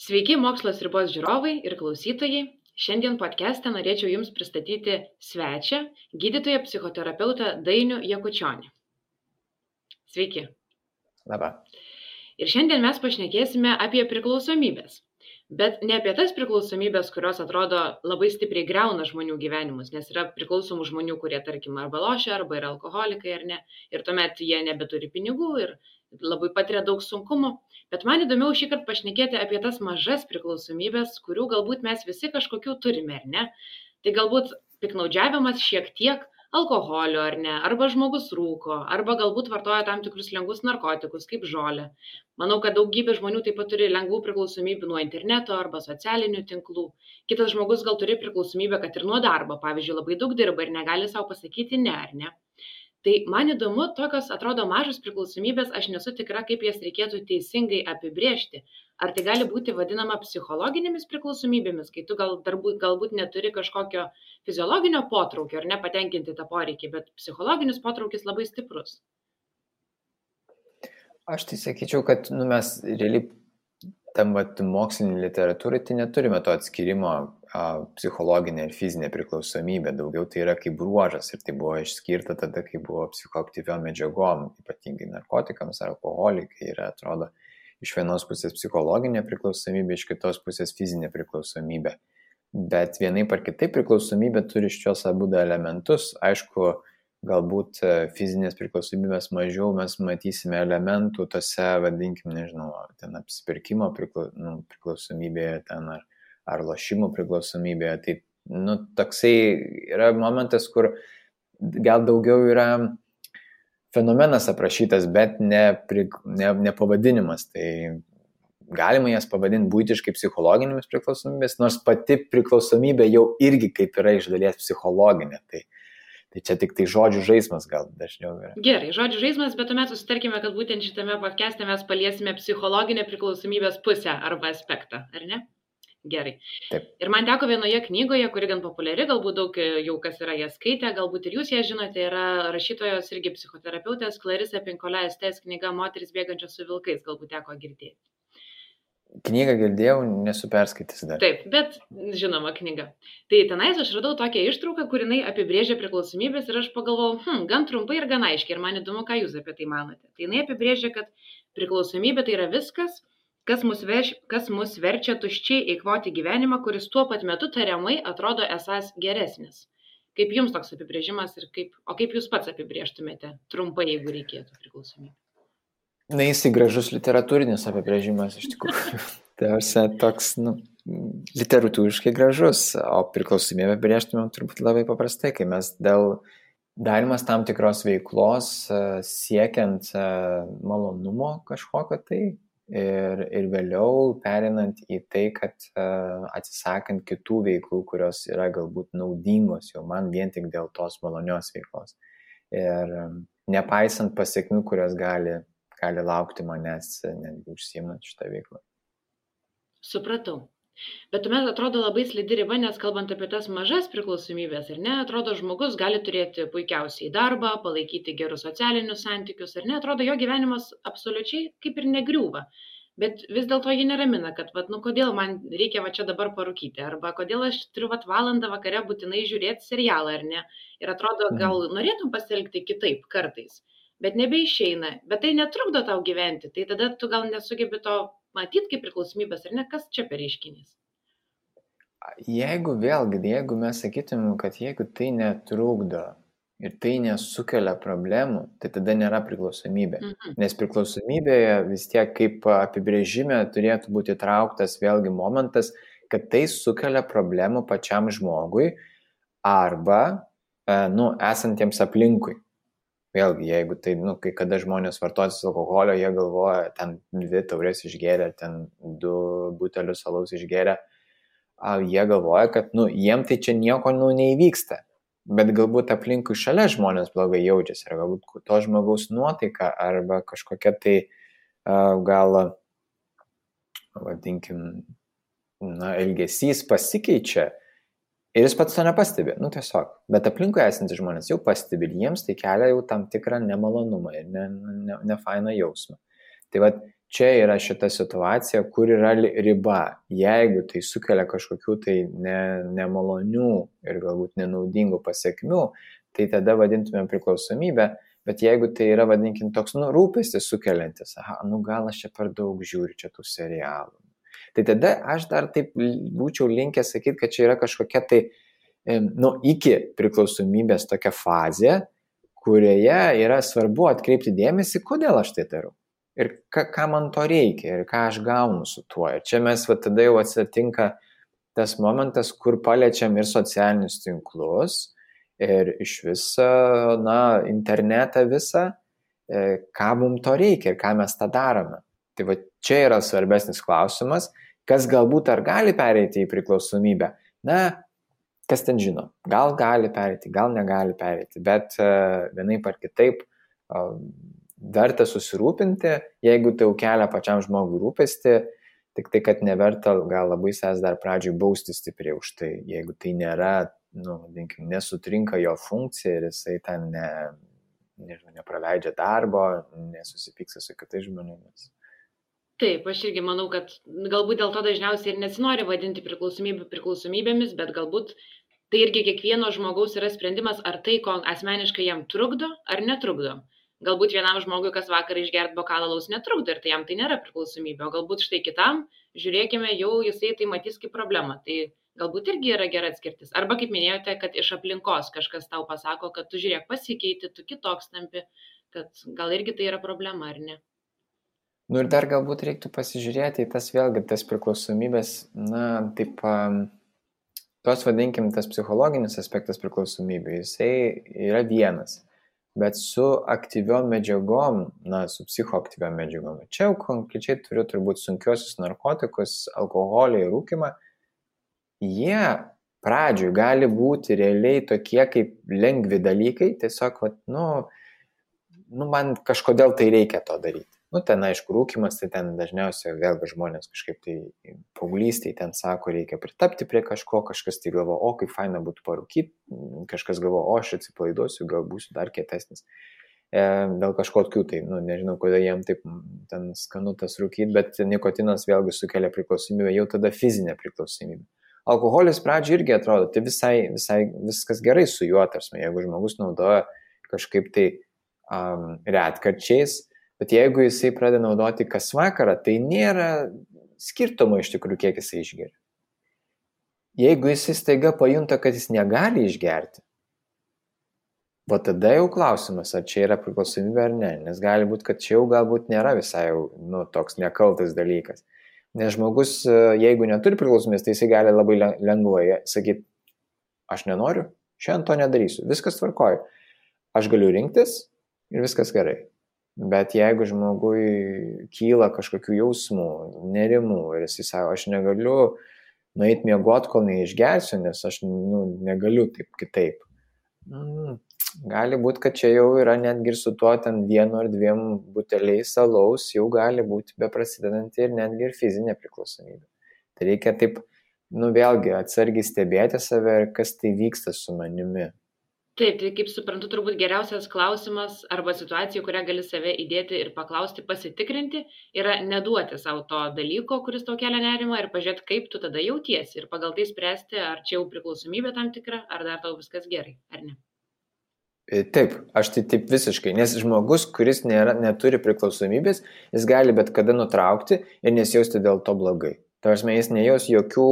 Sveiki, Mokslas ribos žiūrovai ir klausytojai. Šiandien podcast'e norėčiau Jums pristatyti svečią, gydytoją psichoterapeutą Dainių Jakučionį. Sveiki. Labą. Ir šiandien mes pašnekėsime apie priklausomybės. Bet ne apie tas priklausomybės, kurios atrodo labai stipriai griauna žmonių gyvenimus, nes yra priklausomų žmonių, kurie, tarkim, arba lošia, arba yra alkoholikai, ar ne. Ir tuomet jie nebeturi pinigų ir labai patiria daug sunkumų. Bet man įdomiau šįkart pašnekėti apie tas mažas priklausomybės, kurių galbūt mes visi kažkokių turime, ar ne. Tai galbūt piknaudžiavimas šiek tiek alkoholio, ar ne, arba žmogus rūko, arba galbūt vartoja tam tikrus lengvus narkotikus, kaip žolę. Manau, kad daugybė žmonių taip pat turi lengvų priklausomybių nuo interneto arba socialinių tinklų. Kitas žmogus gal turi priklausomybę, kad ir nuo darbo, pavyzdžiui, labai daug dirba ir negali savo pasakyti ne, ar ne. Tai man įdomu, tokios atrodo mažos priklausomybės, aš nesu tikra, kaip jas reikėtų teisingai apibrėžti. Ar tai gali būti vadinama psichologinėmis priklausomybėmis, kai tu galbūt neturi kažkokio fiziologinio potraukio ar nepatenkinti tą poreikį, bet psichologinis potraukis labai stiprus. Aš tai sakyčiau, kad mes realiai tam mokslinį literatūrai tai neturime to atskirimo psichologinė ir fizinė priklausomybė. Daugiau tai yra kaip bruožas ir tai buvo išskirta tada, kai buvo psichoaktyviom medžiagom, ypatingai narkotikams ar alkoholikai. Ir atrodo iš vienos pusės psichologinė priklausomybė, iš kitos pusės fizinė priklausomybė. Bet vienaip ar kitaip priklausomybė turi šios abu elementus. Aišku, galbūt fizinės priklausomybės mažiau mes matysime elementų tose, vadinkim, nežinau, ten apsipirkimo priklausomybėje ten ar lošimų priklausomybėje. Tai, toksai yra momentas, kur gal daugiau yra fenomenas aprašytas, bet ne pavadinimas. Tai galima jas pavadinti būtiškai psichologinėmis priklausomybės, nors pati priklausomybė jau irgi kaip yra iš dalies psichologinė. Tai čia tik tai žodžių žaismas gal dažniau yra. Gerai, žodžių žaismas, bet tuomet susitarkime, kad būtent šitame podcast'e mes paliesime psichologinę priklausomybės pusę arba aspektą, ar ne? Gerai. Taip. Ir man teko vienoje knygoje, kuri gan populiari, galbūt daug jau kas yra ją skaitę, galbūt ir jūs ją žinote, yra rašytojos irgi psichoterapeutės Clarissa Pinkola Estes knyga Moterys bėgančios su vilkais, galbūt teko girdėti. Knygą girdėjau, nesu perskaitęs dar. Taip, bet žinoma knyga. Tai tenais aš radau tokią ištrauką, kur jinai apibrėžia priklausomybės ir aš pagalvojau, gan trumpai ir gan aiškiai, ir man įdomu, ką jūs apie tai manote. Tai jinai apibrėžia, kad priklausomybė tai yra viskas, kas mus verčia tuščiai eikvoti gyvenimą, kuris tuo pat metu tariamai atrodo esąs geresnis. Kaip jums toks apibrėžimas ir kaip jūs pats apibrėžtumėte trumpai, jeigu reikėtų priklausomybę? Jisai gražus literatūrinis apibrėžimas iš tikrųjų. Tai toks, literatūriškai gražus, o priklausomybę apibrėžtumėm turbūt labai paprastai, kai mes dėl darimas tam tikros veiklos siekiant malonumo kažkokio tai ir vėliau perinant į tai, kad atsisakant kitų veiklų, kurios yra galbūt naudingos jau man vien tik dėl tos malonios veiklos. Ir nepaisant pasiekmių, kurios gali laukti manęs netgi užsiimant šitą veiklą. Supratau. Bet tuomet atrodo labai slidi riba, nes kalbant apie tas mažas priklausomybės, ar ne, atrodo žmogus gali turėti puikiausiai darbą, palaikyti gerus socialinius santykius, ar ne, atrodo jo gyvenimas absoliučiai kaip ir negriūva. Bet vis dėlto jį neramina, kad kodėl man reikia čia dabar parūkyti, arba kodėl aš turiu valandą vakare būtinai žiūrėti serialą, ar ne. Ir atrodo, gal norėtum pasielgti kitaip kartais. Bet nebeišeina, bet tai netrukdo tau gyventi, tai tada tu gal nesugebi to matyti kaip priklausomybės, ar ne, kas čia per reiškinys? Jeigu mes sakytumėm, kad jeigu tai netrukdo ir tai nesukelia problemų, tai tada nėra priklausomybė. Nes priklausomybėje vis tiek kaip apibrėžime turėtų būti trauktas vėlgi momentas, kad tai sukelia problemų pačiam žmogui arba esantiems aplinkui. Vėlgi, jeigu tai, kai kada žmonės vartosis alkoholio, jie galvoja, ten 2 taurės išgėrė, ten 2 butelius alaus išgėrė, jie galvoja, kad, jiem tai čia nieko, neįvyksta. Bet galbūt aplinkui šalia žmonės blogai jaučiasi, ar galbūt to žmogaus nuotaika, arba kažkokia tai gal, vadinkim, elgesys pasikeičia. Ir jis pats to nepastebi, nu tiesiog. Bet aplinkui esantys žmonės jau pastebi ir jiems tai kelia jau tam tikrą nemalonumą ir nefainą jausmą. Tai vat čia yra šita situacija, kur yra riba. Jeigu tai sukelia kažkokių tai nemalonių ir galbūt nenaudingų pasiekmių, tai tada vadintumėm priklausomybę. Bet jeigu tai yra, vadinkim, toks rūpestis sukeliantis, gal aš čia per daug žiūriu čia tų serialų. Tai tada aš dar taip būčiau linkęs sakyti, kad čia yra kažkokia tai, iki priklausomybės tokia fazė, kurioje yra svarbu atkreipti dėmesį, kodėl aš tai darau. Ir ką man to reikia, ir ką aš gaunu su tuo. Ir čia mes tada jau atsitinka tas momentas, kur paliečiam ir socialinius tinklus, ir iš viso, internetą visą, ką mums to reikia ir ką mes tą darome. Tai va čia yra svarbesnis klausimas, kas galbūt ar gali pereiti į priklausomybę. Kas ten žino, gal gali pereiti, gal negali pereiti, bet vienaip ar kitaip verta susirūpinti, jeigu tai jau kelia pačiam žmogui rūpestį, tik tai, kad neverta gal labai savęs dar pradžioj bausti stipriai už tai, jeigu tai nėra, nesutrinka jo funkcija ir jisai ten nepraleidžia darbo, nesusipyksta su kitais žmonėmis. Taip, aš irgi manau, kad galbūt dėl to dažniausiai ir nesinori vadinti priklausomybėmis, bet galbūt tai irgi kiekvieno žmogaus yra sprendimas, ar tai, ko asmeniškai jam trukdo, ar netrukdo. Galbūt vienam žmogui, kas vakarą išgerti bokalą alaus netrukdo ir tai jam tai nėra priklausomybė, o galbūt štai kitam, žiūrėkime, jau jisai tai matys kaip problemą. Tai galbūt irgi yra gera atskirtis. Arba kaip minėjote, kad iš aplinkos kažkas tau pasako, kad tu žiūrėk pasikeiti, tu kitoks tampi, kad gal irgi tai yra problema, ar ne? Ir dar galbūt reiktų pasižiūrėti į tas vėlgi, tas priklausomybės, tos vadinkim, tas psichologinis aspektas priklausomybė, jisai yra vienas, bet su aktyviom medžiagom, su psichoaktyviom medžiagom. Čia jau konkrečiai turiu turbūt sunkiosius narkotikus, alkoholį ir rūkimą. Jie pradžioj gali būti realiai tokie kaip lengvi dalykai, tiesiog, man kažkodėl tai reikia to daryti. Ten, aišku, rūkimas, tai ten dažniausiai vėlgi žmonės kažkaip tai paauglystėje ten sako, reikia pritapti prie kažko, kažkas tai galvo, kaip faina būtų parūkyti, kažkas galvo, aš atsipalaiduosiu, gal būsiu dar kietesnis. Dėl kažkokių tai, nežinau, kodėl jiem taip ten skanu tas rūkyti, bet nikotinas vėlgi sukelia priklausomybę, jau tada fizinė priklausomybė. Alkoholis pradžioje irgi atrodo, tai visai viskas gerai su juo, tarsi, jeigu žmogus naudoja kažkaip tai retkarčiais, bet jeigu jisai pradeda naudoti kas vakarą, tai nėra skirtumo iš tikrųjų, kiek jisai išgeria. Jeigu jisai staiga pajunta, kad jis negali išgerti, tada jau klausimas, ar čia yra priklausomybė ar ne, nes gali būti, kad čia jau galbūt nėra visai jau toks nekaltas dalykas. Nes žmogus, jeigu neturi priklausomybės, tai jisai gali labai lengvai sakyti, aš nenoriu, šiandien to nedarysiu, viskas tvarkoja. Aš galiu rinktis ir viskas gerai. Bet jeigu žmogui kyla kažkokių jausmų, nerimų ir jisai sako, aš negaliu nueiti miegoti, kol neišgersiu, nes aš negaliu taip kitaip. Gali būti, kad čia jau yra netgi ir su tuo ten 1 ar 2 buteliais alaus, jau gali būti beprasidedanti ir netgi ir fizinė priklausomybė. Tai reikia taip, vėlgi atsargiai stebėti save ir kas tai vyksta su manimi. Taip, tai kaip suprantu, turbūt geriausias klausimas arba situacija, kurią gali save įdėti ir paklausti, pasitikrinti, yra neduoti savo to dalyko, kuris tau kelia nerimą ir pažiūrėti, kaip tu tada jautiesi ir pagal tai spręsti, ar čia jau priklausomybė tam tikra, ar dar tau viskas gerai, ar ne. Taip, aš tai taip visiškai, nes žmogus, kuris neturi priklausomybės, jis gali bet kada nutraukti ir nesijausti dėl to blogai. Tai jis nejaus jokių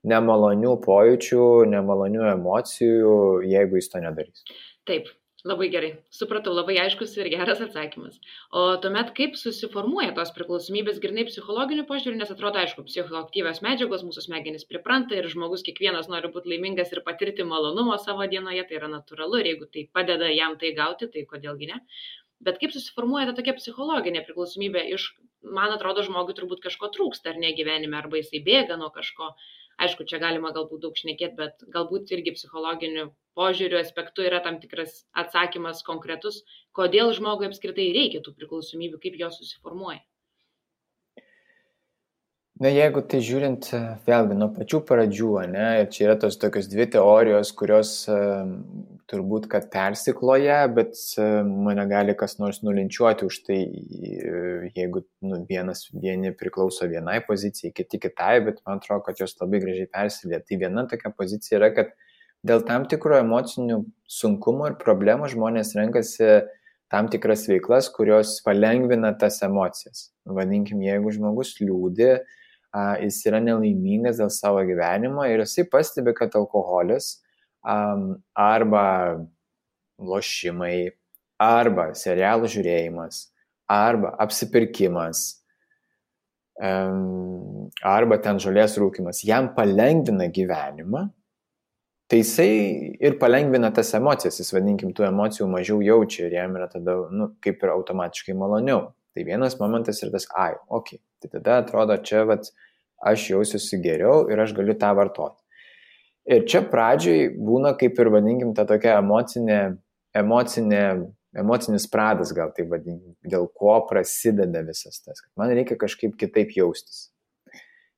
nemalonių pojūčių, nemalonių emocijų, jeigu jis to nedarys. Taip, labai gerai. Supratau, labai aiškus ir geras atsakymas. O tuomet kaip susiformuoja tos priklausomybės grynai psichologiniu požiūriu, nes atrodo, aišku, psichoaktyvios medžiagos, mūsų smegenys pripranta ir žmogus kiekvienas nori būti laimingas ir patirti malonumo savo dienoje, tai yra natūralu ir jeigu tai padeda jam tai gauti, tai kodėlgi ne. Bet kaip susiformuoja ta tokia psichologinė priklausomybė man atrodo, žmogui turbūt kažko trūksta ar ne gyvenime, arba jisai bėga nuo kažko. Aišku, čia galima galbūt daug šnekėti, bet galbūt irgi psichologiniu požiūriu aspektu yra tam tikras atsakymas konkretus, kodėl žmogui apskritai reikia tų priklausomybių, kaip jos susiformuoja. Na, jeigu tai žiūrint vėlgi nuo pačių pradžių, ne, ir čia yra tos tokios dvi teorijos, kurios turbūt, kad persikloja, bet mane gali kas nors nulinčiuoti už tai, jeigu vieni priklauso vienai pozicijai, kiti kitai, bet man atrodo, kad jos labai gražiai persilė. Tai viena tokia pozicija yra, kad dėl tam tikro emocinių sunkumų ir problemų žmonės renkasi tam tikras veiklas, kurios palengvina tas emocijas. Vadinkim, jeigu žmogus liūdi, jis yra nelaimingas dėl savo gyvenimo ir jisai pastebi, kad alkoholis arba lošimai, arba serialų žiūrėjimas, arba apsipirkimas, arba ten žolės rūkimas, jam palengvina gyvenimą, tai jisai ir palengvina tas emocijas, jis vadinkim, tų emocijų mažiau jaučia ir jam yra tada, kaip ir automatiškai maloniau. Tai vienas momentas ir tas, okay. Tai tada atrodo, čia aš jausiuosi geriau ir aš galiu tą vartoti. Ir čia pradžioj būna kaip ir vadinkim ta tokia emocinis pradas, gal tai vadinkim, dėl ko prasideda visas tas, kad man reikia kažkaip kitaip jaustis.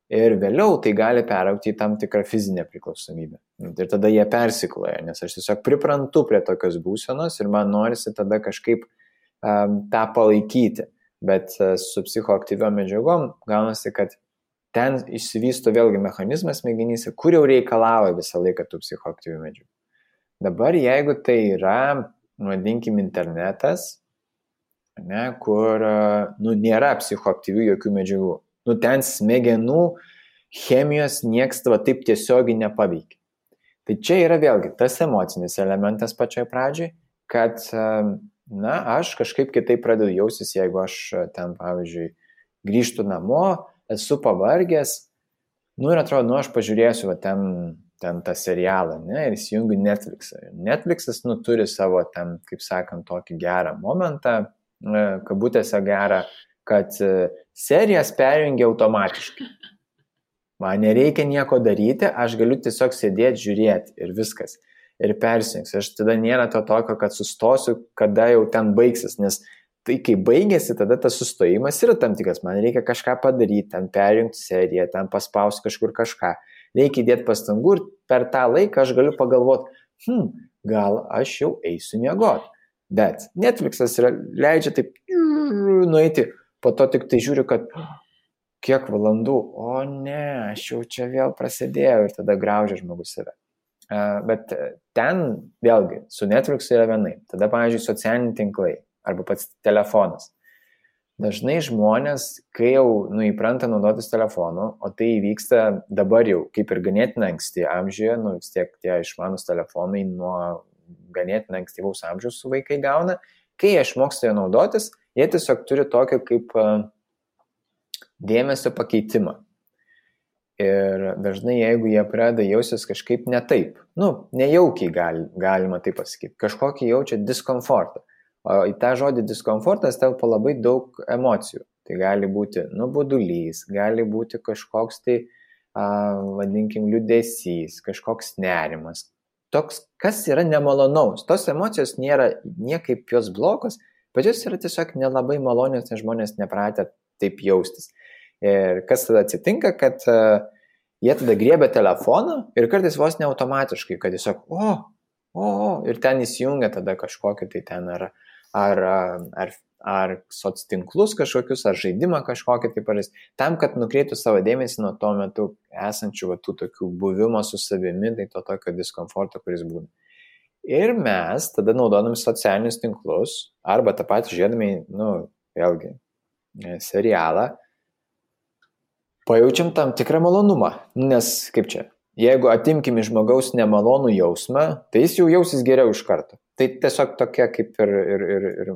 Ir vėliau tai gali peraugti į tam tikrą fizinę priklausomybę. Ir tada jie persikloja, nes aš tiesiog priprantu prie tokios būsenos ir man norisi tada kažkaip tą palaikyti. Bet su psichoaktyviom medžiagom gaunasi, kad ten išsivysto vėlgi mechanizmas smegenyse, kur jau reikalauja visą laiką tų psichoaktyvių medžiagų. Dabar jeigu tai yra, vadinkim, internetas, ne, kur nėra psichoaktyvių jokių medžiagų, ten smegenų chemijos nieks taip tiesiogiai nepaveikia. Tai čia yra vėlgi tas emocinis elementas pačioj pradžioj, kad aš kažkaip kitaip pradedu jausis, jeigu aš ten, pavyzdžiui, grįžtu namo, esu pavargęs, ir atrodo, aš pažiūrėsiu ten tą serialą, ne, ir įsijungiu Netflixą. Netflixas, turi savo ten, kaip sakant, tokį gerą momentą, kabutėse gerą, kad serijas perjungia automatiškai. Man nereikia nieko daryti, aš galiu tiesiog sėdėti, žiūrėti ir viskas. Ir persijungs. Aš tada nėra to tokio, kad sustosiu, kada jau ten baigsis, nes tai kai baigėsi, tada tas sustojimas yra tam tikras, man reikia kažką padaryti, ten perjungti seriją, ten paspausti kažkur kažką, reikia įdėti pastangų ir per tą laiką aš galiu pagalvoti, gal aš jau eisiu miegoti. Bet Netflixas leidžia taip nueiti, po to tik tai žiūriu, kad kiek valandų, o ne, aš jau čia vėl prasidėjau ir tada graužia žmogus save. Bet ten vėlgi su Netflixu yra vienai. Tada, pavyzdžiui, socialiniai tinklai arba pats telefonas. Dažnai žmonės, kai jau įpranta naudotis telefonu, o tai vyksta dabar jau kaip ir ganėtinai anksti amžiuje, vis tiek tie išmanus telefonai nuo ganėtinai ankstyvaus amžiaus su vaikai gauna, kai jie išmoksta jo naudotis, jie tiesiog turi tokį kaip dėmesio pakeitimą. Ir dažnai, jeigu jie pradeda jausis kažkaip ne taip, nejaukiai galima taip pasakyti, kažkokį jaučia diskomfortą. O į tą žodį diskomfortas telpa labai daug emocijų. Tai gali būti nuobodulys, gali būti kažkoks tai, vadinkim, liūdesys, kažkoks nerimas. Toks, kas yra nemalonaus. Tos emocijos nėra niekaip jos blogos, bet jos yra tiesiog nelabai malonios, nes žmonės nepratę taip jaustis. Ir kas tada atsitinka, kad jie tada griebia telefoną ir kartais vos ne automatiškai, kad tiesiog ir ten įsijungia tada kažkokį tai ten ar soctinklus kažkokius, ar žaidimą kažkokį tai paris, tam, kad nukreiptų savo dėmesį nuo tuo metu esančių tų tokių buvimo su savimi, tai to tokio diskomforto, kuris būna. Ir mes tada naudodami socialinius tinklus, arba tą patį žiūrėdami, vėlgi, serialą, pajaučiam tam tikrą malonumą, nes kaip čia, jeigu atimkim iš žmogaus nemalonų jausmą, tai jis jau jausis geriau iš karto. Tai tiesiog tokia kaip ir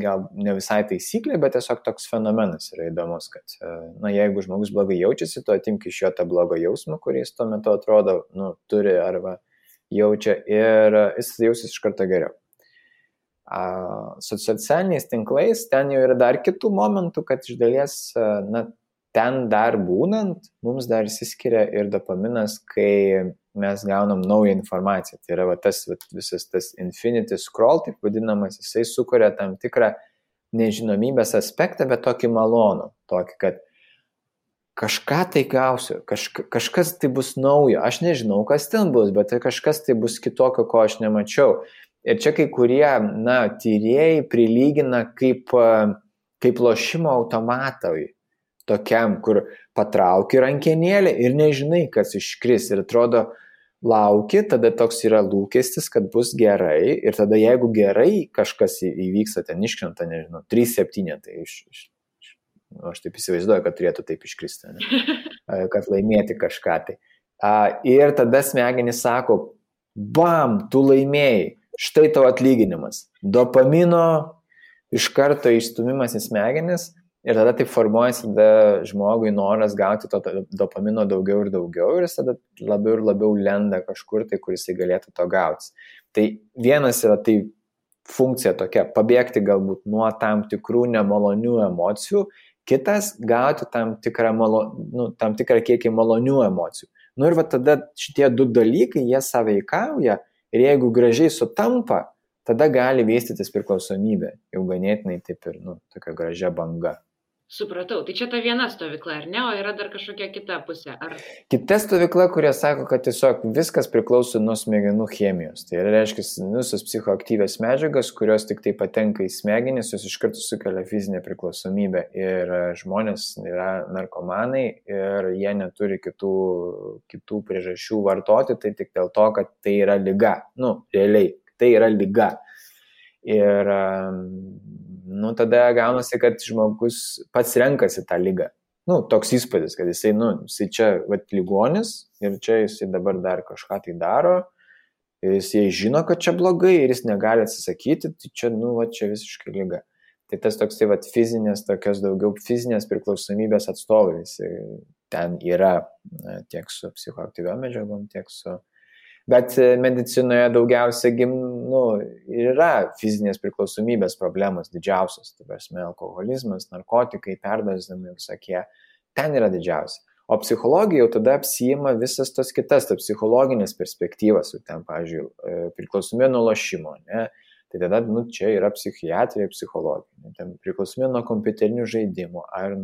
gal ne visai taisyklė, bet tiesiog toks fenomenas yra įdomus, kad jeigu žmogus blogai jaučiasi, tu atimk iš jo tą blogą jausmą, kuris tuo metu atrodo, turi arba jaučia ir jis jausis iš karto geriau. Su socialiniais tinklais ten jau yra dar kitų momentų, kad iš dalies, ten dar būnant, mums dar išsiskiria ir dopaminas, kai mes gaunam naują informaciją. Tai yra visas tas infinity scroll, taip vadinamas, jisai sukuria tam tikrą nežinomybės aspektą, bet tokį malonų. Tokį, kad kažką tai gausiu, kažkas tai bus naujo, aš nežinau, kas ten bus, bet tai kažkas tai bus kitokio, ko aš nemačiau. Ir čia kai kurie, tyrėjai prilygina kaip lošimo automatui, tokiam, kur patrauki rankenėlę ir nežinai, kas iškris. Ir atrodo, lauki, tada toks yra lūkestis, kad bus gerai. Ir tada jeigu gerai kažkas įvyksta, ten iškrenta, nežinau, 3-7, tai aš taip įsivaizduoju, kad turėtų taip iškristi, kad laimėti kažką tai. Ir tada smegenys sako, bam, tu laimėjai, štai tavo atlyginimas. Dopamino iš karto išstumimas į smegenis ir tada taip formuojasi tada žmogui noras gauti to dopamino daugiau ir daugiau ir jis tada labiau ir labiau lenda kažkur tai, kur jisai galėtų to gauti. Tai vienas yra tai funkcija tokia, pabėgti galbūt nuo tam tikrų nemalonių emocijų, kitas gauti tam tikrą kiekį malonių emocijų. Ir va tada šitie du dalykai, jie sąveikauja ir jeigu gražiai sutampa, tada gali vystytis priklausomybė, jau ganėtinai taip ir tokia gražia banga. Supratau, tai čia ta viena stovykla, ar ne, o yra dar kažkokia kita pusė? Kita stovykla, kurie sako, kad tiesiog viskas priklauso nuo smegenų chemijos. Tai reiškia, visos psichoaktyvios medžiagas, kurios tik tai patenka į smegenis, jos iš karto sukelia fizinę priklausomybę. Ir žmonės yra narkomanai ir jie neturi kitų priežasčių vartoti, tai tik dėl to, kad tai yra liga. Realiai, tai yra liga. Ir tada gaunasi, kad žmogus pats renkasi tą ligą. Toks įspūdis, kad jisai čia ligonis ir čia jisai dabar dar kažką tai daro, ir jisai žino, kad čia blogai ir jis negali atsisakyti, tai čia, čia visiškai liga. Tai tas toksai tokios daugiau fizinės priklausomybės atstovai, ten yra tiek su psichoaktyviom medžiagom, tiek su... Bet medicinoje daugiausia yra fizinės priklausomybės problemos didžiausios, tai prasme alkoholizmas, narkotikai, perdozavimai visokie, ten yra didžiausia. O psichologija jau tada apsiima visas tos kitas, tai psichologinės perspektyvas, ten, pavyzdžiui, priklausomybė nuo lošimo, ne? Tai tada, čia yra psichiatrija, psichologija, ten priklausomybė nuo kompiuterinių žaidimų, ar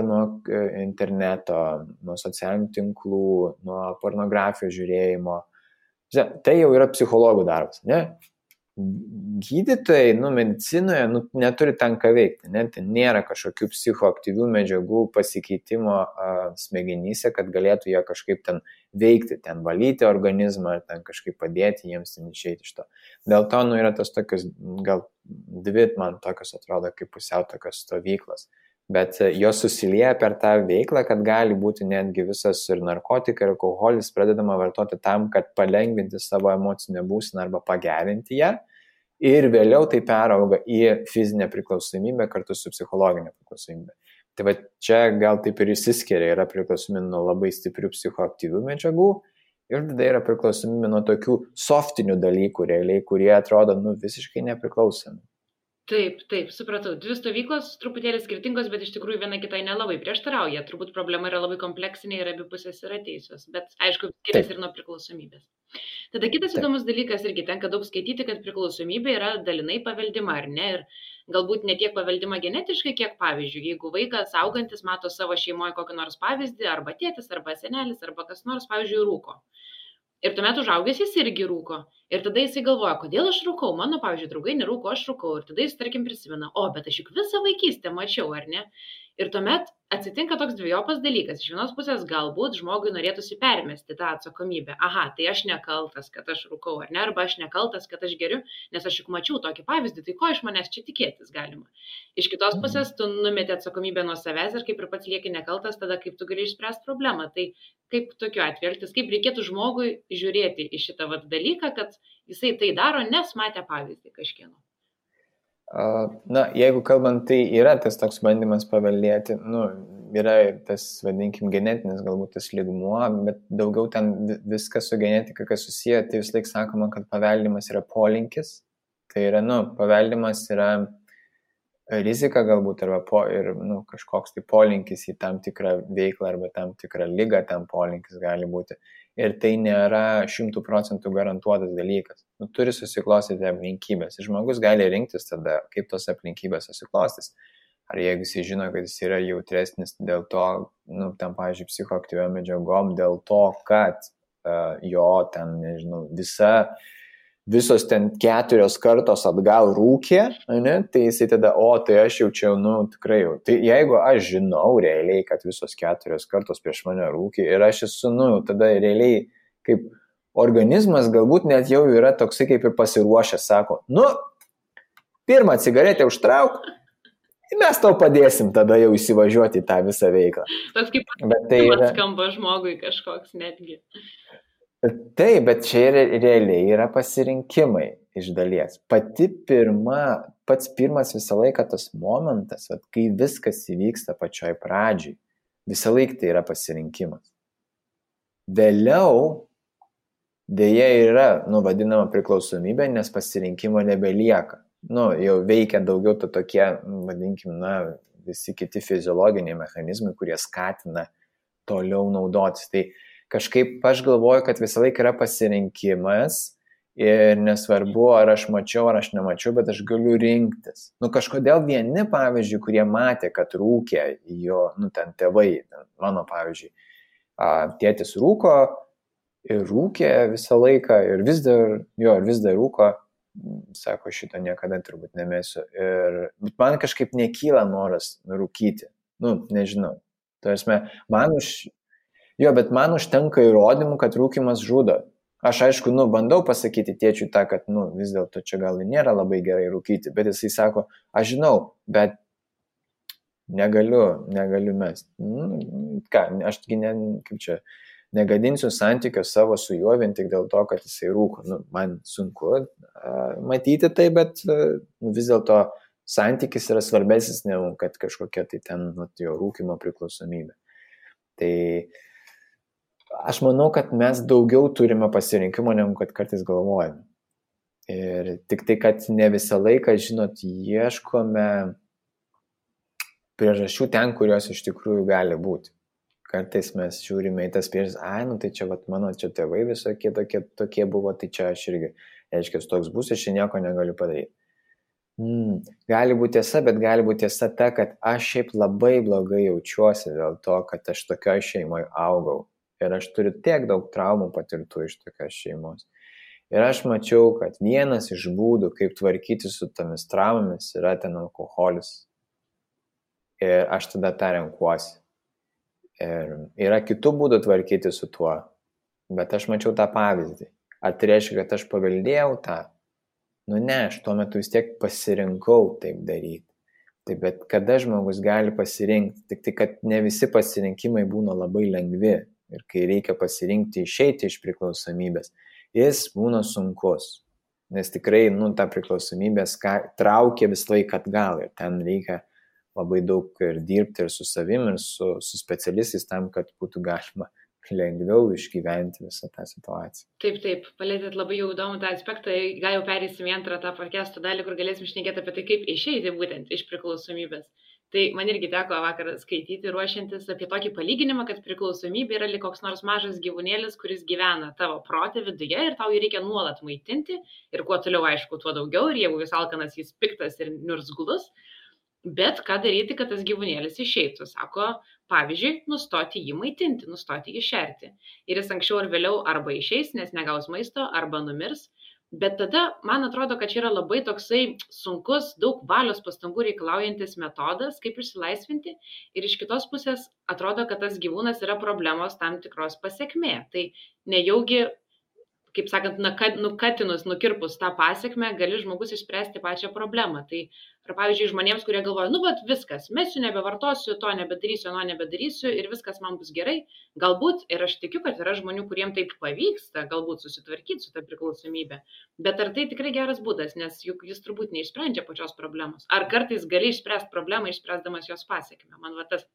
nuo interneto, nuo socialinių tinklų, nuo pornografijos žiūrėjimo. Tai jau yra psichologų darbas, ne? Gydytojai, medicinoje neturi ten ką veikti, ne? Ten nėra kažkokių psichoaktyvių medžiagų pasikeitimo smegenyse, kad galėtų jie kažkaip ten veikti, ten valyti organizmą, ten kažkaip padėti jiems ten išeiti iš to. Dėl to, yra tos tokios, gal dvi man tokios atrodo kaip pusiau tokios stovyklos. Bet jos susilieja per tą veiklą, kad gali būti netgi visas ir narkotikai, ir alkoholis pradedama vartoti tam, kad palengvinti savo emocinę būseną arba pagerinti ją. Ir vėliau tai perauga į fizinę priklausomybę kartu su psichologinė priklausomybė. Tai čia gal taip ir išsiskiria, yra priklausomybė nuo labai stiprių psichoaktyvių medžiagų ir tada yra priklausomybė nuo tokių softinių dalykų realiai, kurie atrodo visiškai nepriklausomi. Taip, supratau. Dvi stovyklos truputėlį skirtingos, bet iš tikrųjų viena kitai nelabai prieštarauja. Turbūt problema yra labai kompleksinė ir abi pusės yra teisios, bet aišku, skiriasi ir nuo priklausomybės. Tada kitas įdomus dalykas, irgi tenka daug skaityti, kad priklausomybė yra dalinai paveldima, ar ne? Ir galbūt ne tiek paveldima genetiškai, kiek pavyzdžiui, jeigu vaikas augantis mato savo šeimoje kokį nors pavyzdį, arba tėtis, arba senelis, arba kas nors, pavyzdžiui, rūko. Ir tuomet užaugęs jis irgi rūko. Ir tada jisai galvoja, kodėl aš rūkau, mano, pavyzdžiui, draugai nerūko, aš rūkau. Ir tada jis, tarkim, prisimena, bet aš juk visą vaikystę mačiau, ar ne? Ir tuomet atsitinka toks dvejopas dalykas. Iš vienos pusės galbūt žmogui norėtųsi permesti tą atsakomybę. Aha, tai aš nekaltas, kad aš rūkau, ar ne? Arba aš nekaltas, kad aš geriu, nes aš juk mačiau tokį pavyzdį, tai ko iš manęs čia tikėtis galima? Iš kitos pusės tu numeti atsakomybę nuo savęs ir kaip ir pats lieki nekaltas, tada kaip tu gali išspręsti problemą. Tai kaip tokiu atveju elgtis, kaip reikėtų žmogui žiūrėti į šitą dalyką, kad jisai tai daro, nes matė pavyzdį kažkieno. Jeigu kalbant, tai yra tas toks bandymas paveldėti, yra tas, vadinkim, genetinis galbūt tas lygmuo, bet daugiau ten viskas su genetika, kas susiję, tai vis laik sakoma, kad paveldimas yra polinkis, tai yra, paveldimas yra rizika galbūt, arba kažkoks tai polinkis į tam tikrą veiklą arba tam tikrą ligą, tam polinkis gali būti. Ir tai nėra 100% garantuotas dalykas. Turi susiklostyti aplinkybės. Ir žmogus gali rinktis tada, kaip tos aplinkybės susiklostys. ar jeigu jis žino, kad jis yra jautresnis dėl to, nu, ten, pavyzdžiui, psichoaktyviom medžiagom, dėl to, kad jo ten, nežinau, visos ten 4 kartos atgal rūkė, ne, tai jisai tada, tai aš jaučiau, nu, tikrai jau. Tai jeigu aš žinau realiai, kad visos 4 kartos prieš mane rūkė ir aš esu, nu, tada realiai kaip organizmas galbūt net jau yra toksai kaip ir pasiruošęs, sako, nu, pirmą cigaretę užtrauk, ir mes tau padėsim tada jau įsivažiuoti į tą visą veiklą. Toks kaip tai skamba žmogui kažkoks netgi. Taip, bet čia realiai yra pasirinkimai iš dalies. Pats pirmas visą laiką tas momentas, kai viskas įvyksta pačioj pradžiai, visą laiką tai yra pasirinkimas. Vėliau dėja yra, nu, vadinama priklausomybė, nes pasirinkimo nebelieka. Nu, jau veikia daugiau tokie, vadinkim, na, visi kiti fiziologiniai mechanizmai, kurie skatina toliau naudotis. Tai kažkaip aš galvoju, kad visą laiką yra pasirinkimas ir nesvarbu, ar aš mačiau, ar aš nemačiau, bet aš galiu rinktis. Nu, kažkodėl vieni, pavyzdžiui, kurie matė, kad rūkė jo, nu, ten tėvai, mano, pavyzdžiui, tėtis rūko ir rūkė visą laiką ir vis dar rūko, sako, šito niekada turbūt nemėsiu. Bet man kažkaip nekyla noras rūkyti. Nu, nežinau. Tarsi, bet man užtenka įrodymų, kad rūkimas žudo. Aš aišku, nu, bandau pasakyti tėčiui tą, kad, nu, vis dėlto čia gal nėra labai gerai rūkyti, bet jisai sako, aš žinau, bet negaliu mesti. Ką, aš negadinsiu santykio savo su juo vien tik dėl to, kad jisai rūko. Nu, man sunku matyti tai, bet vis dėlto santykis yra svarbesnis negu kad kažkokia tai ten jo rūkimo priklausomybė. Tai aš manau, kad mes daugiau turime pasirinkimo, negu kad kartais galvojame. Ir tik tai, kad ne visą laiką, žinot, ieškome priežasčių ten, kurios iš tikrųjų gali būti. Kartais mes žiūrime į tas priežastis, nu tai čia mano čia tėvai visokie tokie buvo, tai čia aš irgi, reiškia, toks bus, aš čia nieko negaliu padaryti. Gali būti tiesa, bet gali būti tiesa ta, kad aš šiaip labai blogai jaučiuosi dėl to, kad aš tokioj šeimoje augau. Ir aš turiu tiek daug traumų patirtų iš tokios šeimos. Ir aš mačiau, kad vienas iš būdų, kaip tvarkyti su tomis traumomis, yra ten alkoholis. Ir aš tada tą renkuosi. Ir yra kitų būdų tvarkyti su tuo. Bet aš mačiau tą pavyzdį. Ar tai reiškia, kad aš paveldėjau tą? Nu ne, aš tuo metu vis tiek pasirinkau taip daryti. Taip, bet kada žmogus gali pasirinkti? Tik tai, kad ne visi pasirinkimai būna labai lengvi. Ir kai reikia pasirinkti išeiti iš priklausomybės, jis būna sunkus. Nes tikrai, nu, ta priklausomybė traukia visą laiką atgal. Ir ten reikia labai daug ir dirbti ir su savim, ir su specialistais tam, kad būtų galima lengviau išgyventi visą tą situaciją. Taip, palėtėt labai jau įdomų tą aspektą, gal jau perėsim į antrą tą podcast'o dalį, kur galėsim šnekėti apie tai, kaip išeiti būtent iš priklausomybės. Tai man irgi teko vakar skaityti, ruošiantis apie tokį palyginimą, kad priklausomybė yra lyg koks nors mažas gyvūnėlis, kuris gyvena tavo prote viduje ir tau jį reikia nuolat maitinti ir kuo toliau, aišku, tuo daugiau ir jeigu jis alkanas, jis piktas ir niurzglus. Bet ką daryti, kad tas gyvūnėlis išeitų? Sako, pavyzdžiui, nustoti jį maitinti, nustoti jį šerti. Ir jis anksčiau ar vėliau arba išeis, nes negaus maisto, arba numirs. Bet tada, man atrodo, kad čia yra labai toksai sunkus, daug valios pastangų reikalaujantis metodas, kaip išsilaisvinti. Ir iš kitos pusės atrodo, kad tas gyvūnas yra problemos tam tikros pasekmė. Tai nejaugi, kaip sakant, nukatinus, nukirpus tą pasekmę, gali žmogus išspręsti pačią problemą. Tai, ar pavyzdžiui, žmonėms, kurie galvoja, nu, bet viskas, mesiu, nebevartosiu, to nebedarysiu, ano nebedarysiu ir viskas man bus gerai. Galbūt, ir aš tikiu, kad yra žmonių, kuriems taip pavyksta, galbūt susitvarkyti su ta priklausomybė. Bet ar tai tikrai geras būdas, nes juk jis turbūt neišsprendžia pačios problemos. Ar kartais gali išspręsti problemą, išspręsdamas jos pasekmę? Man va tas.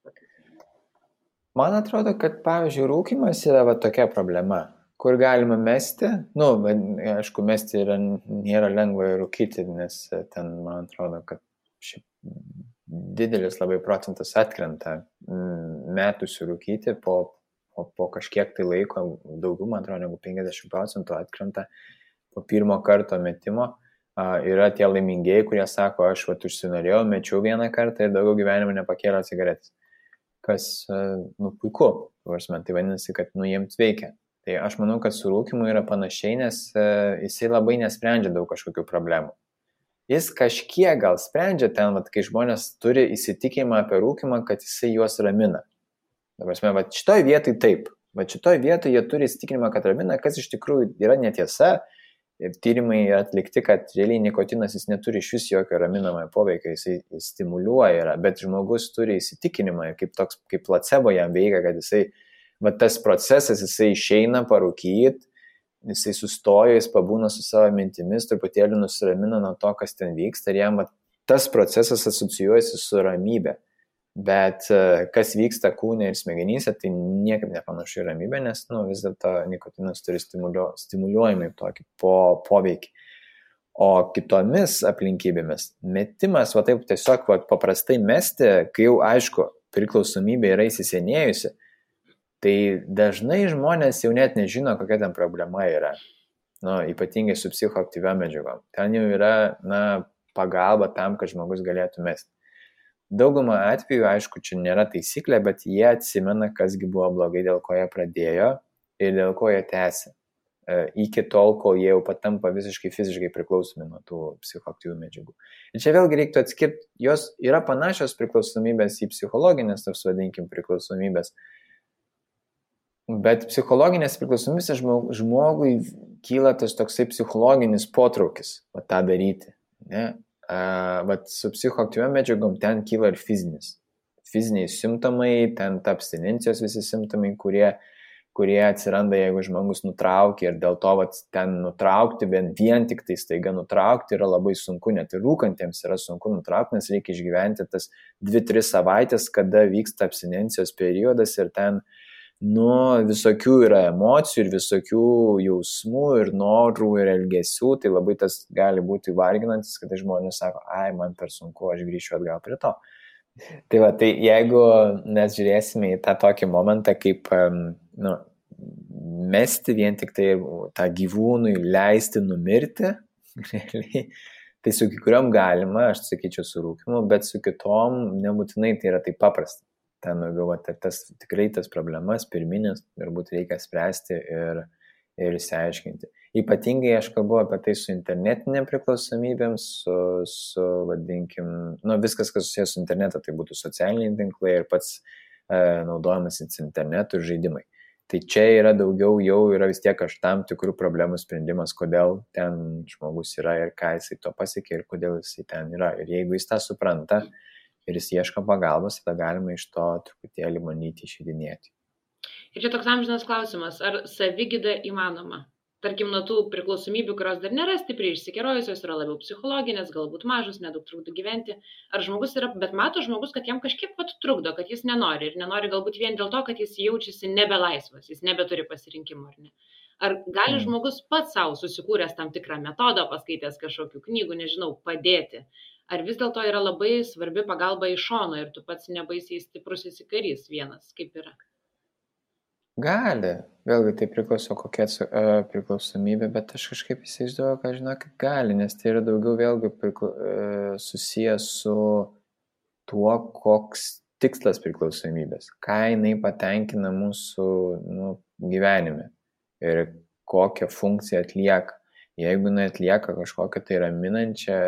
Man atrodo, kad, pavyzdžiui, rūkymas yra va tokia problema, kur galima mesti. Nu, aišku, mesti nėra lengva rūkyti, nes ten, man atrodo, kad šiaip didelis labai procentas atkrenta metusių rūkyti po kažkiek tai laiko, daugiau, man atrodo, negu 50% atkrenta po pirmo karto metimo. Yra tie laimingieji, kurie sako, aš užsinorėjau, mečiau vieną kartą ir daugiau gyvenime nepakėliau cigaretės. Kas, puiku, tai vadinasi, kad, jiems veikia. Tai aš manau, kad su rūkimu yra panašiai, nes jisai labai nesprendžia daug kažkokių problemų. Jis kažkiek gal sprendžia ten, kai žmonės turi įsitikinimą apie rūkimą, kad jisai juos ramina. Dabar, šitoj vietoj taip. Šitoj vietoj jie turi įsitikinimą, kad ramina, kas iš tikrųjų yra netiesa. Ir tyrimai atlikti, kad realiai nikotinas jis neturi iš vis jokio raminamojo poveikio, jisai stimuliuoja, bet žmogus turi įsitikinimą, kaip placebo jam veikia, kad jisai, tas procesas, jisai išeina parūkyt, jisai sustoja, jis pabūna su savo mintimis, truputėlį nusiramina nuo to, kas ten vyksta, ir jam tas procesas asocijuojasi su ramybė. Bet kas vyksta kūne ir smegenyse, tai niekaip nepanašu į ramybę, nes vis dėlto nikotinas turi stimuliuojamai tokį poveikį. O kitomis aplinkybėmis metimas, taip tiesiog paprastai mesti, kai jau aišku, priklausomybė yra įsisenėjusi, tai dažnai žmonės jau net nežino, kokia ten problema yra. Ypatingai su psichoaktyviom medžiagom. Ten jau yra pagalba tam, kad žmogus galėtų mesti. Daugumą atvejų, aišku, čia nėra taisyklė, bet jie atsimena, kasgi buvo blogai, dėl ko jie pradėjo ir dėl ko jie tęsia. Iki tol, kol jie jau patampa visiškai fiziškai priklausomi nuo tų psichoaktyvių medžiagų. Ir čia vėlgi reiktų atskirti, jos yra panašios priklausomybės į psichologinės, tas vadinkim, priklausomybės. Bet psichologinės priklausomybės žmogui kyla tas toksai psichologinis potraukis tą daryti, ne? Su psichoaktyviom medžiagom ten kyla ir fiziniai simptomai, ten ta abstinencijos visi simptomai, kurie atsiranda, jeigu žmogus nutraukia, ir dėl to ten nutraukti, vien tik tai staiga nutraukti yra labai sunku, net ir rūkantiems yra sunku nutraukti, nes reikia išgyventi tas 2-3 savaitės, kada vyksta abstinencijos periodas, ir ten visokių yra emocijų ir visokių jausmų ir norų ir elgesių, tai labai tas gali būti varginantis, kada žmonės sako, man per sunku, aš grįšiu atgal prie to. Tai jeigu mes žiūrėsime į tą tokį momentą, kaip mesti vien tik tai tą gyvūnui leisti numirti, tai su kiekvienam galima, aš sakyčiau, su rūkimu, bet su kitom nebūtinai tai yra taip paprasta. Ten tikrai tas problemas pirminės turbūt reikia spręsti ir išsiaiškinti. Ypatingai aš kalbu apie tai su internetinėm priklausomybėm, vadinkim, viskas, kas susijęs su internetu, tai būtų socialiniai tinklai ir pats naudojamas internetu ir žaidimai. Tai čia yra daugiau, jau yra vis tiek tam tikrų problemų sprendimas, kodėl ten žmogus yra ir ką jisai to pasiekė ir kodėl jisai ten yra. Ir jeigu jis tą supranta, ir jis ieško pagalbos, tada galima iš to truputėlį manyti išeidinėti. Ir čia toks amžinas klausimas, ar savigyda įmanoma? Tarkim, nuo tų priklausomybių, kurios dar nėra stipriai išsikerojusios, yra labiau psichologinės, galbūt mažos, nedaug trukdo gyventi. Ar žmogus yra, bet mato žmogus, kad jam kažkiek trukdo, kad jis nenori. Ir nenori galbūt vien dėl to, kad jis jaučiasi nebelaisvas, jis nebeturi pasirinkimo, ar ne? Ar gali žmogus pats savo susikūręs tam tikrą metodą, paskaitęs kažkokių knygų, nežinau, padėti? Ar vis dėlto yra labai svarbi pagalba iš šono ir tu pats nebaisiai stiprus įsikarys vienas, kaip yra? Gali. Vėlgi tai priklauso kokia priklausomybė, bet aš kažkaip įsivaizduoju, kad žinokit gali, nes tai yra daugiau vėlgi susijęs su tuo, koks tikslas priklausomybės, ką jinai patenkina mūsų gyvenime ir kokią funkciją atlieka. Jeigu atlieka kažkokią tai raminančią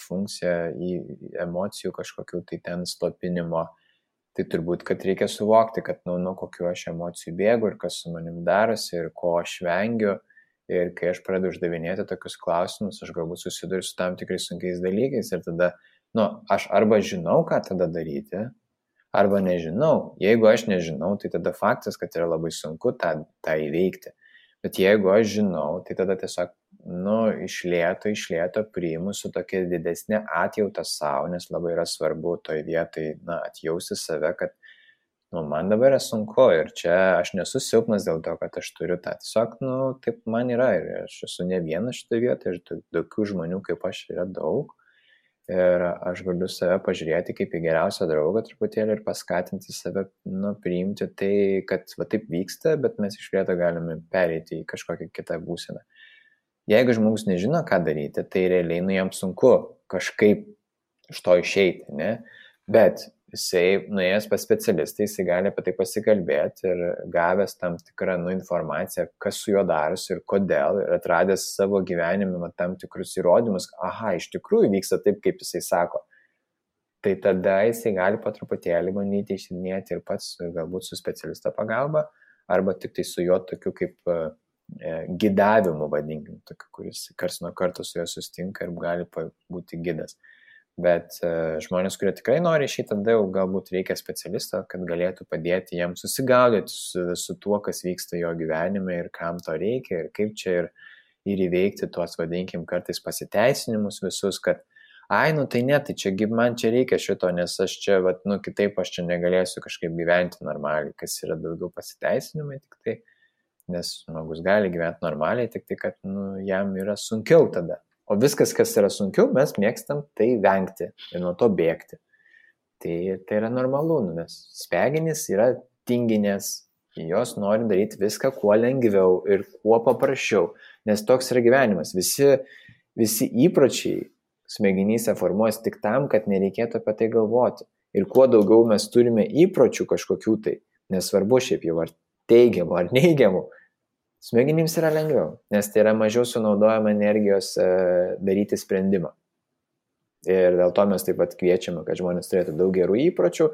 funkciją į emocijų kažkokių tai ten slopinimo, tai turbūt, kad reikia suvokti, kad nuo kokių aš emocijų bėgu ir kas su manim darosi ir ko aš vengiu. Ir kai aš pradedu uždavinėti tokius klausimus, aš galbūt susiduriu su tam tikrais sunkiais dalykais ir tada, aš arba žinau, ką tada daryti, arba nežinau. Jeigu aš nežinau, tai tada faktas, kad yra labai sunku tą įveikti. Bet jeigu aš žinau, tai tada tiesiog, iš lėto priimu su tokia didesnė atjauta savo, nes labai yra svarbu toj vietai, atjausti save, kad, man dabar yra sunku ir čia aš nesu silpnas dėl to, kad aš turiu tą. Tiesiog, taip man yra ir aš esu ne vienas šitoje vietoje ir tokių žmonių kaip aš yra daug. Ir aš galiu save pažiūrėti kaip į geriausią draugą truputėlį ir paskatinti save, priimti tai, kad taip vyksta, bet mes iš lėto galime pereiti į kažkokią kitą būseną. Jeigu žmogus nežino, ką daryti, tai realiai jam sunku kažkaip iš to išeiti, ne? Bet jisai nuėjęs pas specialistą, jisai gali apie tai pasikalbėti ir gavęs tam tikrą informaciją, kas su juo darosi ir kodėl, ir atradęs savo gyvenime tam tikrus įrodymus, aha, iš tikrųjų vyksta taip, kaip jisai sako. Tai tada jisai gali po truputėlį bandyti išsidinėti ir pats, galbūt su specialisto pagalba, arba tik tai su juo tokiu kaip gidavimu, vadinkim, tokiu, kuris karts nuo karto su juo sustinka ir gali būti gidas. Bet žmonės, kurie tikrai nori išeiti, tada jau galbūt reikia specialisto, kad galėtų padėti jam susigaudyti su tuo, kas vyksta jo gyvenime ir kam to reikia ir kaip čia ir įveikti tuos, vadinkim, kartais pasiteisinimus visus, kad ai, tai ne, tai čia man čia reikia šito, nes aš čia, kitaip aš čia negalėsiu kažkaip gyventi normaliai, kas yra daugiau pasiteisinimai tik tai, nes žmogus gali gyventi normaliai, tik tai, kad jam yra sunkiau tada. O viskas, kas yra sunkiau, mes mėgstam tai vengti ir nuo to bėgti. Tai yra normalu, nes smegenys yra tinginės, jos nori daryti viską kuo lengviau ir kuo paprasčiau, nes toks yra gyvenimas. Visi įpročiai smegenyse formuojas tik tam, kad nereikėtų apie tai galvoti. Ir kuo daugiau mes turime įpročių kažkokių tai, nesvarbu šiaip jau ar teigiamų ar neigiamų, smegenims yra lengviau, nes tai yra mažiau sunaudojama energijos daryti sprendimą. Ir dėl to mes taip pat kviečiame, kad žmonės turėtų daug gerų įpročių,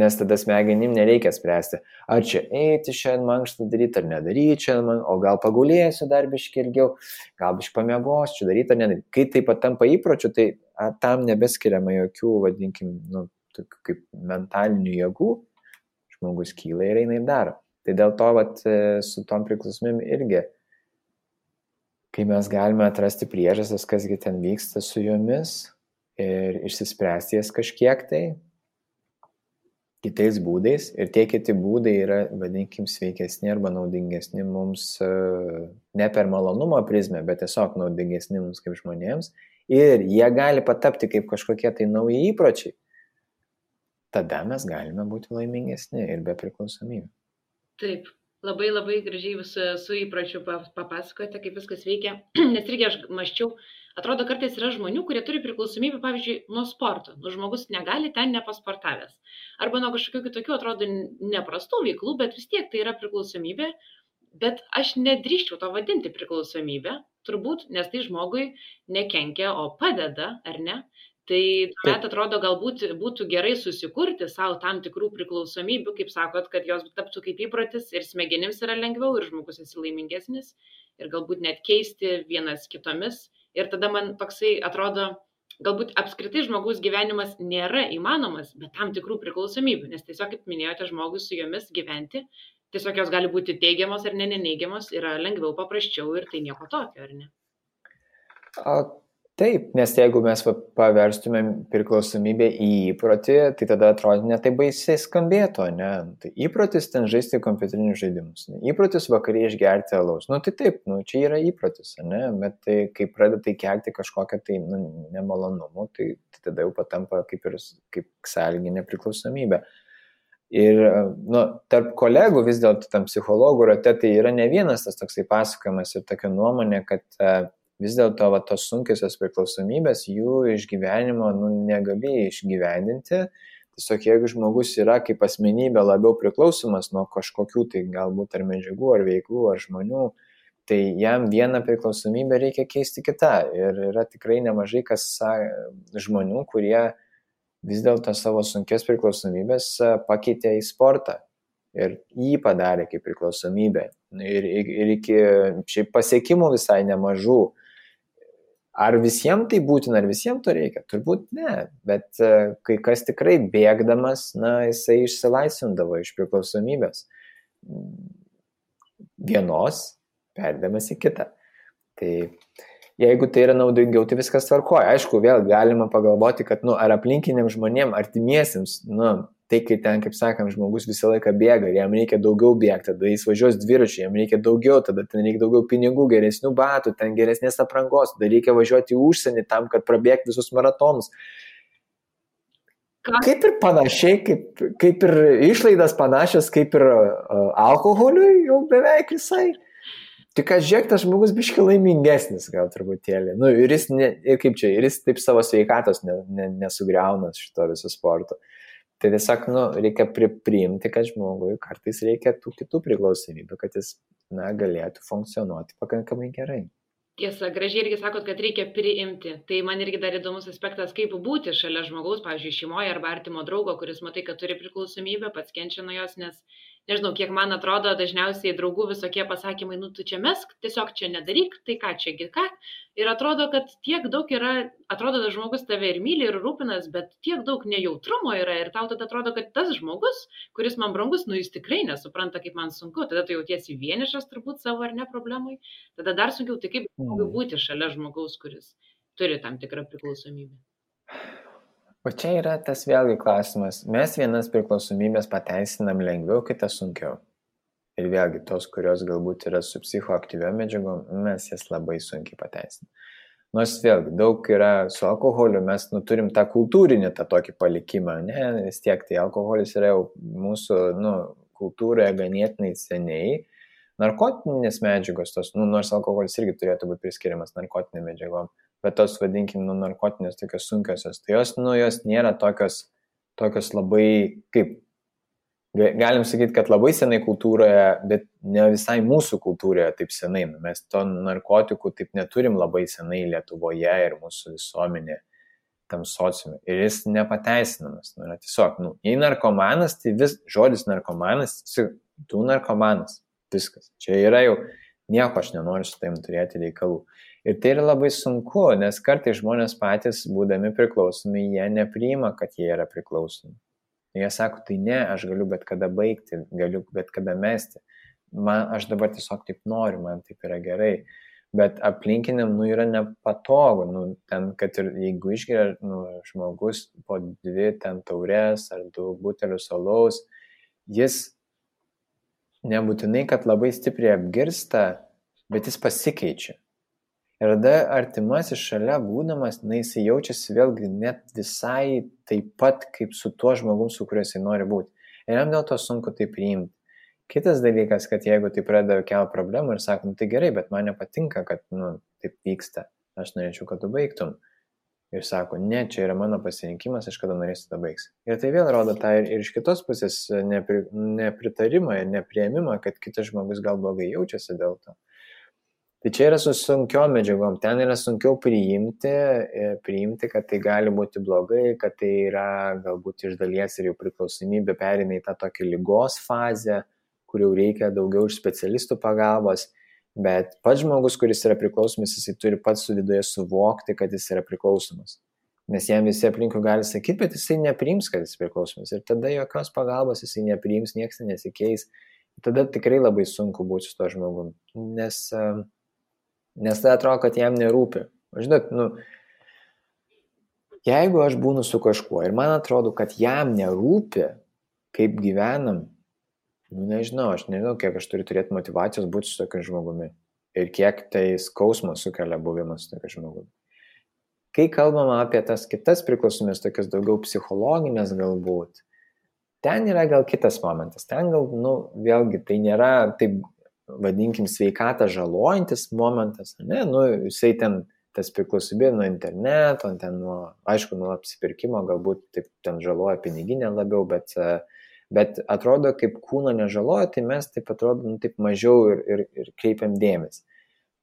nes tada smegenim nereikia spręsti, ar čia eiti šiandien mankštą daryti, ar nedaryti šiandien, o gal pagulėsiu dar biškį ilgiau, gal biškį pamiegosiu, čia daryti ar nedaryti. Kai tai patampa įpročių, tai tam nebeskiriama jokių, vadinkim, tokių kaip mentalinių jėgų, žmogus kyla ir eina ir daro. Tai dėl to su tom priklausomybėm irgi, kai mes galime atrasti priežastis, kasgi ten vyksta su jomis ir išsispręsti jas kažkiek tai kitais būdais, ir tie kiti būdai yra, vadinkim, sveikesni arba naudingesni mums ne per malonumo prizmę, bet tiesiog naudingesni mums kaip žmonėms, ir jie gali patapti kaip kažkokie tai nauji įpročiai, tada mes galime būti laimingesni ir be priklausomybių. Taip, labai gražiai su įpročiu papasakojate, kaip viskas veikia, nes irgi aš maščiau, atrodo, kartais yra žmonių, kurie turi priklausomybę, pavyzdžiui, nuo sporto, žmogus negali ten nepasportavęs, arba nuo kažkokių kitokių, atrodo, neprastų veiklų, bet vis tiek tai yra priklausomybė, bet aš nedrįščiau to vadinti priklausomybę, turbūt, nes tai žmogui nekenkia, o padeda, ar ne? Tai tuomet atrodo, galbūt būtų gerai susikurti savo tam tikrų priklausomybių, kaip sakot, kad jos taptų kaip įprotis ir smegenims yra lengviau ir žmogus esi laimingesnis ir galbūt net keisti vienas kitomis. Ir tada man toksai atrodo, galbūt apskritai žmogaus gyvenimas nėra įmanomas, bet tam tikrų priklausomybių, nes tiesiog, kaip minėjote, žmogus su jomis gyventi, tiesiog jos gali būti teigiamos ar neneigiamos, yra lengviau, paprasčiau ir tai nieko tokio, ar ne? Taip, nes jeigu mes paverstumėm priklausomybę į įprotį, tai tada atrodo ne taip baisiai skambėtų, ne? Tai įprotis ten žaisti kompiuterinius žaidimus, ne? Įprotis vakariai išgerti alaus. Tai taip, čia yra įprotis, ne? Bet tai, kai pradeda tai kelti kažkokią tai nemalonumų, tai tada jau patampa kaip sąlyginė priklausomybė. Ir tarp kolegų vis dėlto tam psichologų rate tai yra ne vienas tas toksai pasakojimas ir tokia nuomonė, kad vis dėlto tos sunkiosios priklausomybės, jų išgyvenimo negali išgyvendinti. Tiesiog jeigu žmogus yra kaip asmenybė labiau priklausomas nuo kažkokių tai galbūt ar medžiagų, ar veiklų, ar žmonių, tai jam vieną priklausomybę reikia keisti kitą. Ir yra tikrai nemažai žmonių, kurie vis dėlto savo sunkias priklausomybės pakeitė į sportą. Ir jį padarė kaip priklausomybę. Ir iki šiaip pasiekimų visai nemažų. Ar visiems tai būtina, ar visiems to reikia? Turbūt ne, bet kai kas tikrai bėgdamas, jisai išsilaisvindavo iš priklausomybės vienos, perdamas į kitą. Tai jeigu tai yra naudingiau, tai viskas tvarkoja. Aišku, vėl galima pagalvoti, kad ar aplinkiniam žmonėm, artimiesiems, tai kai ten, kaip sakant, žmogus visą laiką bėga ir jam reikia daugiau bėgti, tada jis važiuos dviračiu, jam reikia daugiau, tada ten reikia daugiau pinigų, geresnių batų, ten geresnės aprangos, tada reikia važiuoti į užsienį tam, kad prabėgti visus maratonus. Kaip ir panašiai, kaip ir išlaidas panašios, kaip ir alkoholiui jau beveik visai. Tik kad žiūrėk, tas žmogus biški laimingesnis gal truputėlį. Nu, ir jis taip savo sveikatos nesugriauna šito viso sporto. Tai tiesiog, reikia priimti, kad žmogui kartais reikia tų kitų priklausomybių, kad jis, galėtų funkcionuoti pakankamai gerai. Tiesa, gražiai irgi sakot, kad reikia priimti. Tai man irgi dar įdomus aspektas, kaip būti šalia žmogaus, pavyzdžiui, šeimoje arba artimo draugo, kuris matai, kad turi priklausomybę, pats kenčia nuo jos, nes nežinau, kiek man atrodo, dažniausiai draugų visokie pasakymai, tu čia mesk, tiesiog čia nedaryk, tai ką čiagi ką. Ir atrodo, kad tiek daug yra, atrodo, kad žmogus tave ir myli, ir rūpinas, bet tiek daug nejautrumo yra ir tau tada atrodo, kad tas žmogus, kuris man brangus, jis tikrai nesupranta, kaip man sunku. Tada tu jautiesi vienišas turbūt savo ar ne problemai. Tada dar sunkiau, tai kaip būti šalia žmogaus, kuris turi tam tikrą priklausomybę. O čia yra tas vėlgi klausimas. Mes vienas priklausomybės pateisinam lengviau, kitas sunkiau. Ir vėlgi tos, kurios galbūt yra su psichoaktyviom medžiagom, mes jas labai sunkiai pateisinam. Nors vėlgi daug yra su alkoholiu, mes turim tą kultūrinį, tą tokį palikimą. Ne, vis tiek tai alkoholis yra jau mūsų kultūroje ganėtinai seniai. Narkotinės medžiagos, nors alkoholis irgi turėtų būti priskiriamas narkotinėm medžiagom, bet tos, vadinkim, narkotinės tokios sunkiosios, tai jos nėra tokios labai, kaip, galim sakyti, kad labai senai kultūroje, bet ne visai mūsų kultūroje taip senai. Mes to narkotikų taip neturim labai senai Lietuvoje ir mūsų visuomenė tam sociume. Ir jis nepateisinamas. Tiesiog, jei narkomanas, tai žodis narkomanas, tu narkomanas. Viskas. Čia yra jau nieko, aš nenoriu su taim turėti reikalų. Ir tai yra labai sunku, nes kartais žmonės patys, būdami priklausomi, jie nepriima, kad jie yra priklausomi. Jie sako, tai ne, aš galiu bet kada baigti, galiu bet kada mesti. Aš dabar tiesiog taip noriu, man taip yra gerai. Bet aplinkiniam, yra nepatogu. Ten, kad ir jeigu išgeria žmogus po 2 ten taurės ar 2 butelius alaus, jis nebūtinai, kad labai stipriai apgirsta, bet jis pasikeičia. Ir tada artimasis šalia būdamas, jis jaučiasi vėlgi net visai taip pat, kaip su tuo žmogum, su kuriuo jis nori būti. Ir jam dėl to sunku tai priimti. Kitas dalykas, kad jeigu tai pradeda kelti problemų ir sakom, tai gerai, bet man nepatinka, kad taip vyksta. Aš norėčiau, kad tu baigtum. Ir sako, ne, čia yra mano pasirinkimas, aš kada norėsiu tą baigsiu. Ir tai vėl rodo tą ir iš kitos pusės nepritarimą ir nepriėmimą, kad kitas žmogus gal blogai jaučiasi dėl to. Tai čia yra su sunkiom medžiagom, ten yra sunkiau priimti, kad tai gali būti blogai, kad tai yra galbūt iš dalies ir jau priklausomybė pereina į tą tokį ligos fazę, kur jau reikia daugiau iš specialistų pagalbos. Bet pats žmogus, kuris yra priklausomas, jisai turi pats su viduje suvokti, kad jis yra priklausomas. Nes jam visi aplinkui gali sakyti, bet jisai nepriims, kad jis priklausomas. Ir tada jokios pagalbos jisai nepriims, niekas nesikeis. Tada tikrai labai sunku būti su to žmogum. Nes tai atrodo, kad jam nerūpi. Žinot, jeigu aš būnu su kažkuo ir man atrodo, kad jam nerūpi, kaip gyvenam, nežinau, kiek aš turiu turėti motivacijos būti su tokiu žmogumi ir kiek tai skausmo sukelia buvimas su tokiu žmogumi. Kai kalbama apie tas kitas priklausomybės, tokias daugiau psichologinės galbūt, ten yra gal kitas momentas. Ten gal, vėlgi, tai nėra, taip vadinkim, sveikatą žalojantis momentas, ne, jisai ten tas priklausomybė nuo interneto, ten nuo apsipirkimo, galbūt taip ten žaloja piniginę labiau, bet atrodo, kaip kūno nežaloja, tai mes taip atrodo, taip mažiau ir kreipiam dėmesį.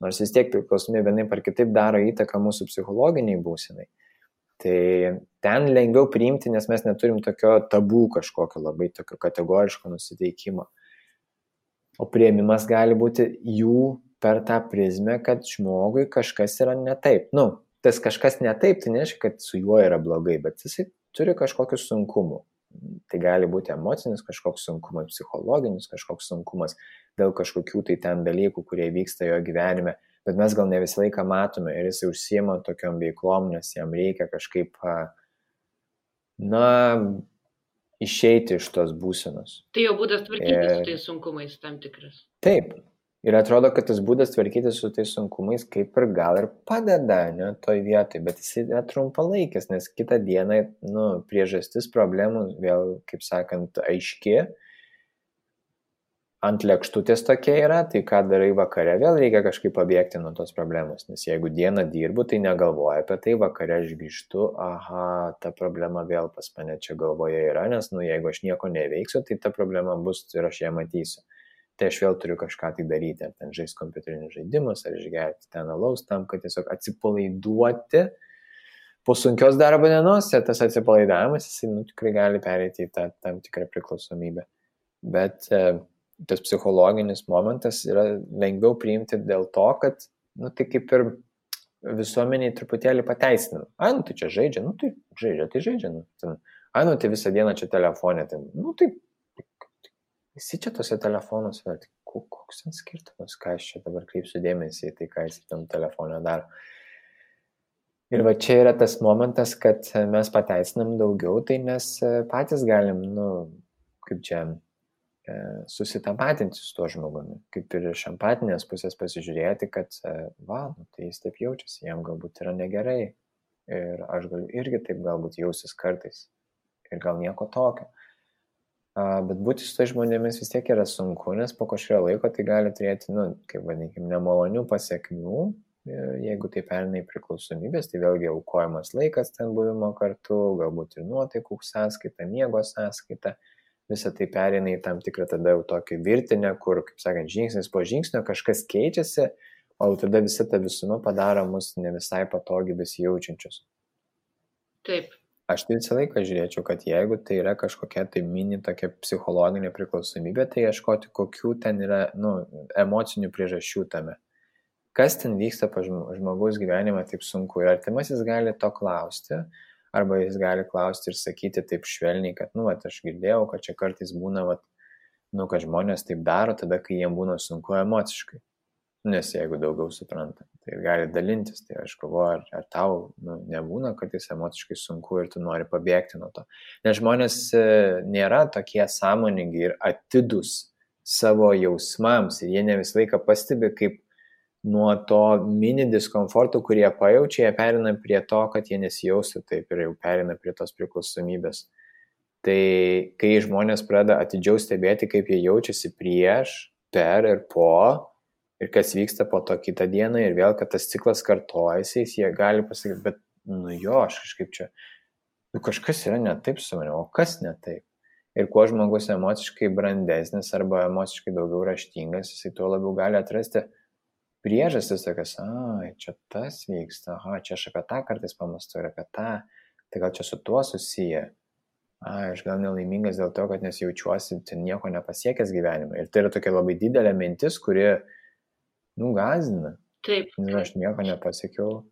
Nors vis tiek priklausomybė vienaip ar kitaip daro įtaką mūsų psichologiniai būsenai. Tai ten lengviau priimti, nes mes neturim tokio tabų kažkokio labai tokio kategoriško nusiteikimo. O priėmimas gali būti jų per tą prizmę, kad žmogui kažkas yra ne taip. Tas kažkas ne taip, tai nereiškia, kad su juo yra blogai, bet jisai turi kažkokių sunkumų. Tai gali būti emocinis kažkoks sunkumas, psichologinis kažkoks sunkumas dėl kažkokių tai ten dalykų, kurie vyksta jo gyvenime, bet mes gal ne visą laiką matome ir jis užsiema tokiom veiklom, nes jam reikia kažkaip, išeiti iš tos būsenos. Tai jo būdas tvarkytis su tais sunkumais tam tikras. Taip. Ir atrodo, kad tas būdas tvarkytis su tais sunkumais kaip ir gal ir padeda, ne, toj vietoj, bet jis yra trumpalaikis, nes kitą dieną, priežastis problemų vėl, kaip sakant, aiški. ant lėkštutės tokia yra, tai ką darai vakare, vėl reikia kažkaip pabėgti nuo tos problemos, nes jeigu dieną dirbu, tai negalvoju apie tai, vakare aš grįžtu, aha, ta problema vėl pas mane čia galvoje yra, nes, jeigu aš nieko neveiksiu, tai ta problema bus ir aš ją matysiu. Tai aš vėl turiu kažką tai daryti, ar ten žaisti kompiuterinius žaidimus, ar išgerti ten alaus tam, kad tiesiog atsipalaiduoti po sunkios darbo dienos, ir tas atsipalaidavimas, jisai tikrai gali pereiti į tą tam tikrą priklausomybę. Bet tas psichologinis momentas yra lengviau priimti dėl to, kad, tai kaip ir visuomeniai truputėlį pateisinam. Tai čia žaidžia, tai žaidžia. Tai visą dieną čia telefonė, tai visi čia tose telefonuose, koks ten skirtumas, ką aš čia dabar kreipsiu dėmesį į tai, ką jis tam telefonė daro. Ir va čia yra tas momentas, kad mes pateisinam daugiau, tai mes patys galim, kaip čia, susitapatinti su tuo žmogumi, kaip ir iš empatinės pusės pasižiūrėti, kad, tai jis taip jaučiasi, jam galbūt yra negerai ir aš galiu irgi taip galbūt jausis kartais ir gal nieko tokio. Bet būti su tai žmonėmis vis tiek yra sunku, nes po kažkurio laiko tai gali turėti, kaip vadinkim, nemalonių pasiekmių, jeigu tai pereina į priklausomybės, tai vėlgi aukojamas laikas ten buvimo kartu, galbūt ir nuotaikų sąskaita, miego sąskaita. Visą tai pereina į tam tikrą tada jau tokį virtinę, kur, kaip sakant, žingsnis po žingsnio kažkas keičiasi, o tada visa ta visuma padaro mus ne visai patogiai besijaučiančius. Taip. Aš tai visą laiką žiūrėčiau, kad jeigu tai yra kažkokia tai mini tokia psichologinė priklausomybė, tai ieškoti, kokių ten yra emocinių priežasčių tame. Kas ten vyksta pa žmogaus gyvenime taip sunku. Ir artimasis gali to klausti, arba jis gali klausti ir sakyti taip švelniai, kad, aš girdėjau, kad čia kartais būna, kad žmonės taip daro tada, kai jiems būna sunku emociškai. Nes jeigu daugiau supranta, tai gali dalintis. Tai aš galvoju, ar tau nebūna kartais emociškai sunku ir tu nori pabėgti nuo to. Nes žmonės nėra tokie sąmoningi ir atidūs savo jausmams ir jie ne visą laiką pastebi, kaip nuo to mini diskomforto, kurie pajaučia, jie perina prie to, kad jie nesijaustų taip ir jau perina prie tos priklausomybės. Tai kai žmonės pradeda atidžiau stebėti, kaip jie jaučiasi prieš, per ir po, ir kas vyksta po to kitą dieną, ir vėl, kad tas ciklas kartojasi, jie gali pasakyti, bet, aš kažkaip čia, kažkas yra ne taip su manimi, o kas ne taip? Ir kuo žmogus emociškai brandesnis arba emociškai daugiau raštingas, jisai tuo labiau gali atrasti priežastis tokias, čia tas vyksta, čia aš apie tą kartais pamastu ir apie tą, tai gal čia su tuo susiję, aš gal nelaimingas dėl to, kad nesijaučiuosi nieko nepasiekęs gyvenime. Ir tai yra tokia labai didelė mintis, kuri, gąsdina. Taip. Ir aš nieko nepasiekiau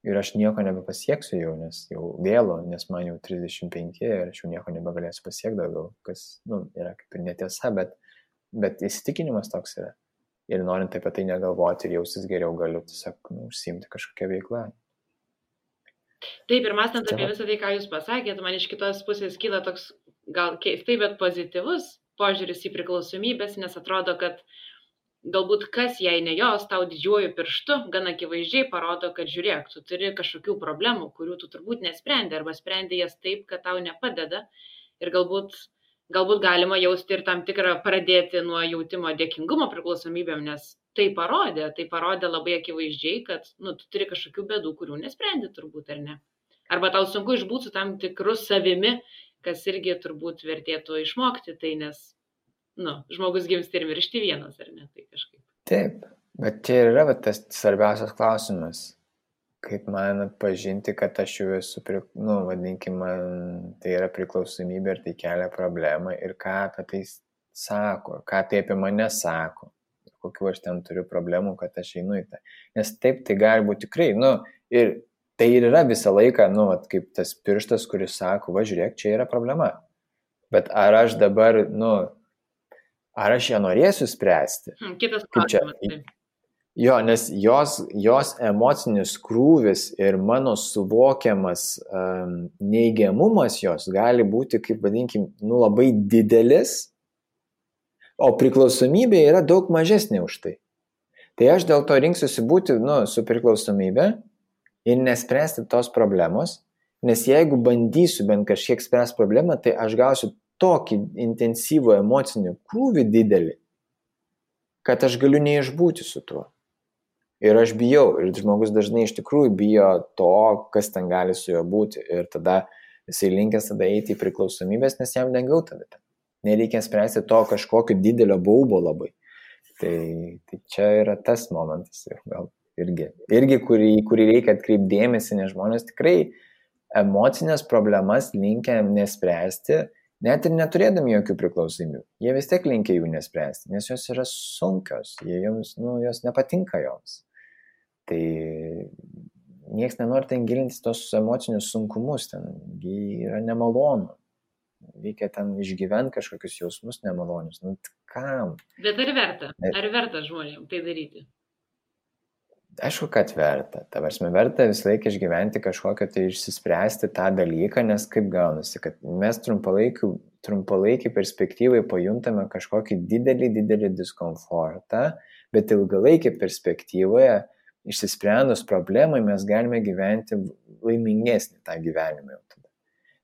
ir aš nieko nebepasieksiu jau, nes jau vėlu, nes man jau 35 ir aš jau nieko nebegalėsiu pasiekti daugiau, kas, yra kaip ir netiesa, bet įsitikinimas toks yra. Ir norint apie tai negalvoti ir jausis geriau, galiu tiesiog užsiimti kažkokią veiklą. Taip, ir mąstant apie visą tai, ką jūs pasakėt, man iš kitos pusės kyla toks gal keistai, bet pozityvus požiūris į priklausomybės, nes atrodo, kad galbūt kas, jei ne jos, tau didžiuoju pirštu, gan akivaizdžiai parodo, kad žiūrėk, tu turi kažkokių problemų, kurių tu turbūt nesprendi, arba sprendi jas taip, kad tau nepadeda. Ir galbūt galima jausti ir tam tikrą pradėti nuo jautimo dėkingumo priklausomybėm, nes tai parodė labai akivaizdžiai, kad tu turi kažkokių bėdų, kurių nesprendi turbūt, ar ne. Arba tau sunku išbūti su tam tikru savimi, kas irgi turbūt vertėtų išmokti, tai nes žmogus gimsta ir miršti vienas, ar ne, tai kažkaip. Taip, bet čia yra tas svarbiausias klausimas. Kaip man atpažinti, kad aš jau esu, vadinkim, man tai yra priklausomybė ir tai kelia problemą ir ką apie tai sako, ką tai apie mane sako, kokiu aš ten turiu problemų, kad aš einu į tą. Nes taip tai gali būti tikrai, ir tai ir yra visą laiką, kaip tas pirštas, kuris sako, žiūrėk, čia yra problema. Bet ar aš dabar, ar aš ją norėsiu spręsti? Kitas klausimas. Jo, nes jos emocinis krūvis ir mano suvokiamas neigiamumas jos gali būti, kaip vadinkim, labai didelis, o priklausomybė yra daug mažesnė už tai. Tai aš dėl to rinksiuosi būti su priklausomybė ir nespręsti tos problemos, nes jeigu bandysiu bent kažkiek spręsti problemą, tai aš gausiu tokį intensyvų emocinį krūvį didelį, kad aš galiu neišbūti su tuo. Ir aš bijau, ir žmogus dažnai iš tikrųjų bijo to, kas ten gali su juo būti. Ir tada jisai linkęs tada eiti į priklausomybės, nes jam lengviau tada. Nereikia spręsti to kažkokio didelio baubo labai. Tai čia yra tas momentas, gal irgi kurį reikia atkreipti dėmesį, nes žmonės tikrai emocinės problemas linkę nespręsti, net ir neturėdami jokių priklausomybių. Jie vis tiek linkia jų nespręsti, nes jos yra sunkios, jos nepatinka joms. Tai nieks nenori ten gilintis tos emocinius sunkumus, ten yra nemalonu. Reikia ten išgyventi kažkokius jausmus nemalonius. Kam? Bet ar verta? Ar verta žmonėms tai daryti? Aišku, kad verta. Ta prasme, verta visą laiką išgyventi kažkokią tai išsispręsti tą dalyką, nes kaip gaunasi, kad mes trumpalaikį perspektyvai pajuntame kažkokį didelį diskomfortą, bet ilgalaikį perspektyvoje išsisprendus problemai mes galime gyventi laimingesnį tą gyvenimą jau tada.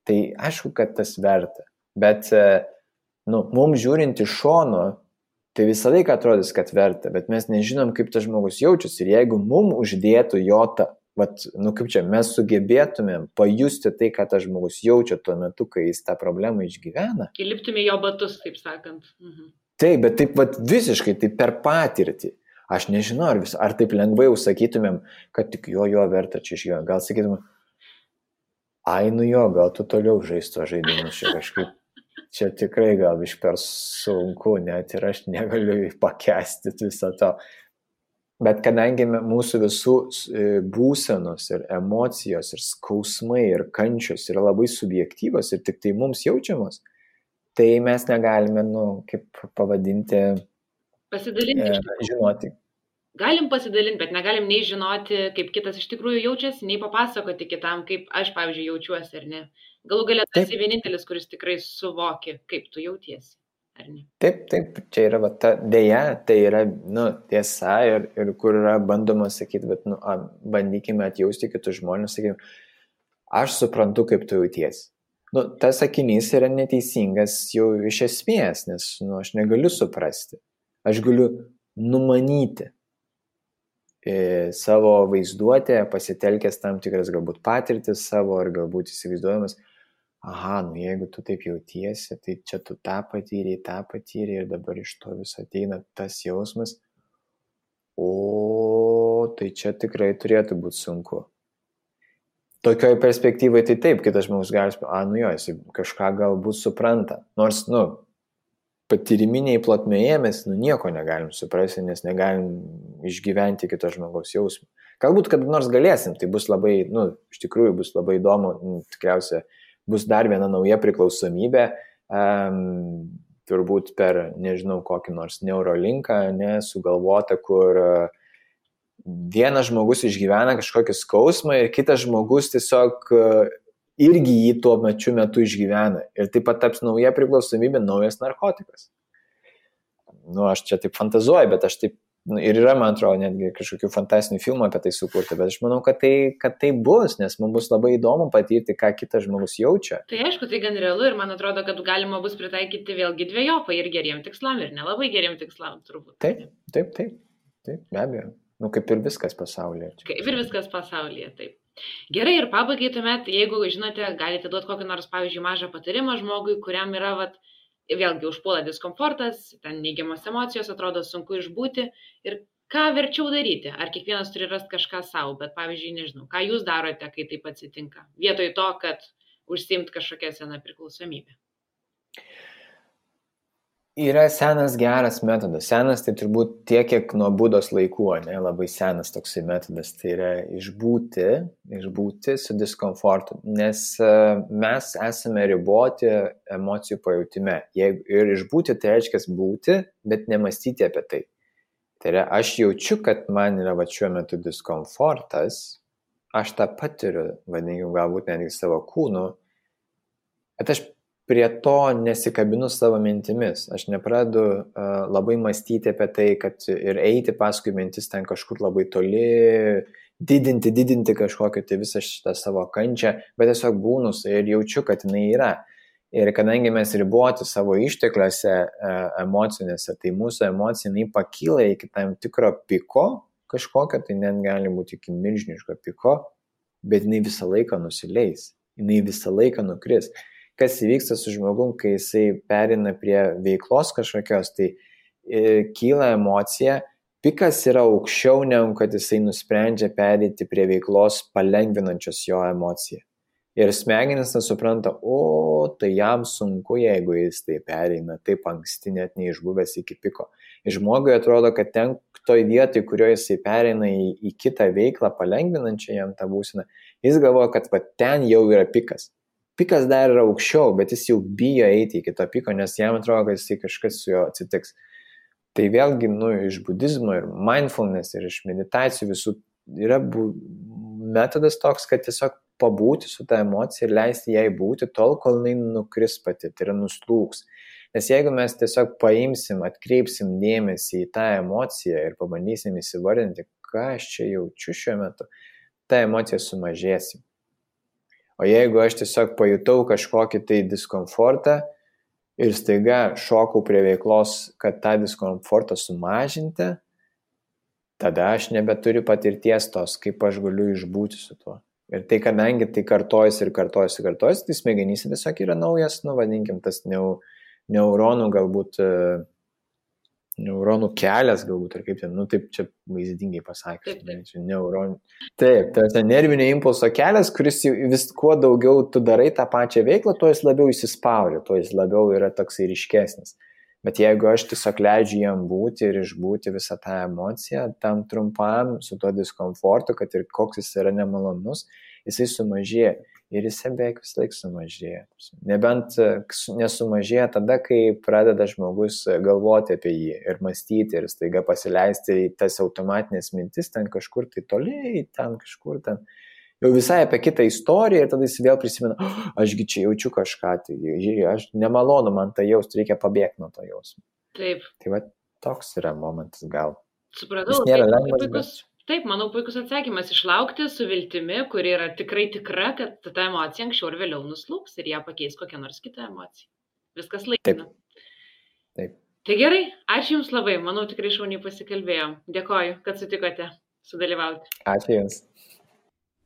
Tai aišku, kad tas verta, bet mums žiūrint iš šono, tai visą laiką atrodys, kad verta, bet mes nežinom, kaip tas žmogus jaučiasi. Ir jeigu mums uždėtų mes sugebėtumėm pajusti tai, ką tas žmogus jaučia tuo metu, kai jis tą problemą išgyvena. Įliptume jo batus, taip sakant. Taip, bet taip visiškai, tai per patirtį. Aš nežinau, ar taip lengvai sakytumėm, kad tik jo verta čia iš jo. Gal sakytumėm, gal tu toliau žaisto žaidimus čia kažkaip. Čia tikrai gal iš per sunku, net ir aš negaliu pakęsti viso to. Bet kadangi mūsų visų būsenos ir emocijos ir skausmai ir kančios yra labai subjektyvos ir tik tai mums jaučiamos, tai mes negalime, kaip pavadinti, pasidalinti. Žinoti. Galim pasidalinti, bet negalim nei žinoti, kaip kitas iš tikrųjų jaučiasi, nei papasakoti kitam, kaip aš, pavyzdžiui, jaučiuosi, ar ne. Galų galia tu esi vienintelis, kuris tikrai suvoki, kaip tu jautiesi, ar ne. Taip, čia yra dėja, tai yra tiesa ir kur yra bandoma sakyti, bet bandykime atjausti kitus žmonės, sakykime, aš suprantu, kaip tu jautiesi. Tas sakinys yra neteisingas jau iš esmės, nes aš negaliu suprasti. Aš galiu numanyti savo vaizduotę, pasitelkęs tam tikras galbūt patirtis savo, ar galbūt įsivaizduojamas, jeigu tu taip jautiesi, tai čia tu tą patyrei ir dabar iš to vis ateina tas jausmas, tai čia tikrai turėtų būti sunku. Tokioj perspektyvai tai taip, kitas žmogus gali, jis kažką galbūt supranta, nors, patyriminiai plotmėje mes nieko negalim suprasti, nes negalim išgyventi kito žmogaus jausmą. Galbūt kada nors galėsim, tai bus labai, iš tikrųjų bus labai įdomu, tikriausiai bus dar viena nauja priklausomybė, turbūt per, nežinau, kokį nors neurolinką, sugalvota, kur vienas žmogus išgyvena kažkokį skausmą ir kitas žmogus tiesiog irgi jį tuo metu išgyvena. Ir taip pat taps nauja priklausomybė, naujas narkotikas. Aš čia taip fantazuoju, bet aš taip, ir yra, man atrodo, netgi kažkokių fantastinių filmų apie tai sukurti, bet aš manau, kad tai bus, nes mums bus labai įdomu patirti, ką kitas žmogus jaučia. Tai aišku, tai gan realu ir man atrodo, kad galima bus pritaikyti vėlgi dvejopai ir geriem tikslam, ir nelabai geriem tikslam, turbūt. Taip, be abejo. Kaip ir viskas pasaulyje. Kaip ir viskas pasaulyje, taip. Gerai, ir pabaigai tuomet, jeigu žinote, galite duoti kokį nors, pavyzdžiui, mažą patarimą žmogui, kuriam yra, vėlgi užpuola diskomfortas, ten neigiamos emocijos, atrodo sunku išbūti ir ką verčiau daryti? Ar kiekvienas turi rasti kažką savo, bet pavyzdžiui, nežinau, ką jūs darote, kai taip atsitinka, vietoj to, kad užsiimt kažkokią seną priklausomybę? Yra senas geras metodas. Senas tai turbūt tiek, kiek nuo Budos laikų, labai senas toksai metodas. Tai yra išbūti su diskomfortu, nes mes esame riboti emocijų pajautime. Ir išbūti tai reiškia būti, bet nemastyti apie tai. Tai yra, aš jaučiu, kad man yra šiuo metu diskomfortas, aš tą patiriu, vadinkim, galbūt netgi savo kūnu, bet aš prie to nesikabinu savo mintimis. Aš nepradedu labai mąstyti apie tai, kad ir eiti paskui mintis ten kažkur labai toli, didinti kažkokią tai visą šitą savo kančią, bet tiesiog būnu ir jaučiu, kad jinai yra. Ir kadangi mes riboti savo ištekliuose emocinėse, tai mūsų emocija jinai pakyla iki tam tikro piko kažkokio, tai net gali būti iki milžiniško piko, bet jinai visą laiką nusileis, jinai visą laiką nukris. Kas įvyksta su žmogum, kai jisai perina prie veiklos kažkokios, tai kyla emocija, pikas yra aukščiau, negu kad jisai nusprendžia pereiti prie veiklos palengvinančios jo emociją. Ir smegenis nesupranta, tai jam sunku, jeigu jis tai pereina taip anksti, net neišbuvęs iki piko. Ir žmogui atrodo, kad ten toj vietoj, kurioje jisai pereina į kitą veiklą palengvinančią jam tą būseną, jis galvoja, kad ten jau yra pikas. Pikas dar yra aukščiau, bet jis jau bijo eiti iki to piko, nes jam atrodo, kad jisai kažkas su juo atsitiks. Tai vėlgi, iš budizmo ir mindfulness ir iš meditacijų visų yra metodas toks, kad tiesiog pabūti su ta emocija ir leisti jai būti tol, kol jinai nukris pati, tai yra nuslūgs. Nes jeigu mes tiesiog paimsim, atkreipsim dėmesį į tą emociją ir pabandysim įsivardinti, ką aš čia jaučiu šiuo metu, ta emocija sumažėsim. O jeigu aš tiesiog pajutau kažkokį tai diskomfortą ir staiga šokau prie veiklos, kad tą diskomfortą sumažinti, tada aš nebeturiu patirties tos, kaip aš galiu išbūti su tuo. Ir tai, kadangi tai kartojasi, tai smegenyse tiesiog yra naujas, vadinkim, tas neuronų galbūt, neuronų kelias galbūt, ar kaip ten, taip čia vaizdingai pasakęs. Neuronų. Taip, tas nervinio impulso kelias, kuris vis kuo daugiau tu darai tą pačią veiklą, tuo jis labiau įsispaudžia, tuo jis labiau yra toksai ryškesnis. Bet jeigu aš tiesiog leidžiu jam būti ir išbūti visą tą emociją, tam trumpam su tuo diskomfortu, kad ir koks jis yra nemalonus, jisai sumažėja. Ir jisai beveik vis laik sumažėja. Nebent nesumažėja tada, kai pradeda žmogus galvoti apie jį ir mąstyti ir staiga pasileisti į tas automatinės mintis ten kažkur tai toliai, ten kažkur ten. Jau visai apie kitą istoriją ir tada jis vėl prisimena, ašgi čia jaučiu kažką, tai aš nemalonu man tai jausti, reikia pabėgti nuo to jausmo. Taip. Tai toks yra momentas gal. Supratau, jis nėra lengvas, bet... Taip, manau, puikus atsakymas išlaukti su viltimi, kuri yra tikrai tikra, kad ta emocija anksčiau ir vėliau nuslūgs ir ją pakeis kokią nors kitą emociją. Viskas laikina. Taip. Tai gerai, ačiū Jums labai, manau, tikrai šauniai pasikalbėjom. Dėkoju, kad sutikote sudalyvauti. Ačiū Jums.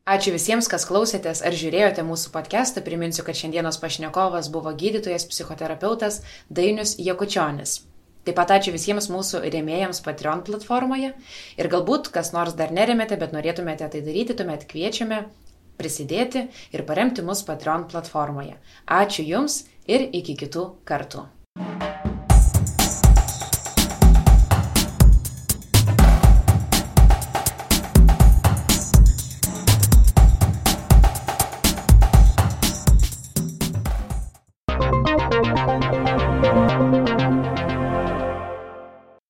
Ačiū visiems, kas klausėtės ar žiūrėjote mūsų podcastą. Priminsiu, kad šiandienos pašnekovas buvo gydytojas, psichoterapeutas Dainius Jakučionis. Taip pat ačiū visiems mūsų rėmėjams Patreon platformoje ir galbūt kas nors dar neremėte, bet norėtumėte tai daryti, tuomet kviečiame prisidėti ir paremti mus Patreon platformoje. Ačiū Jums ir iki kitų kartų.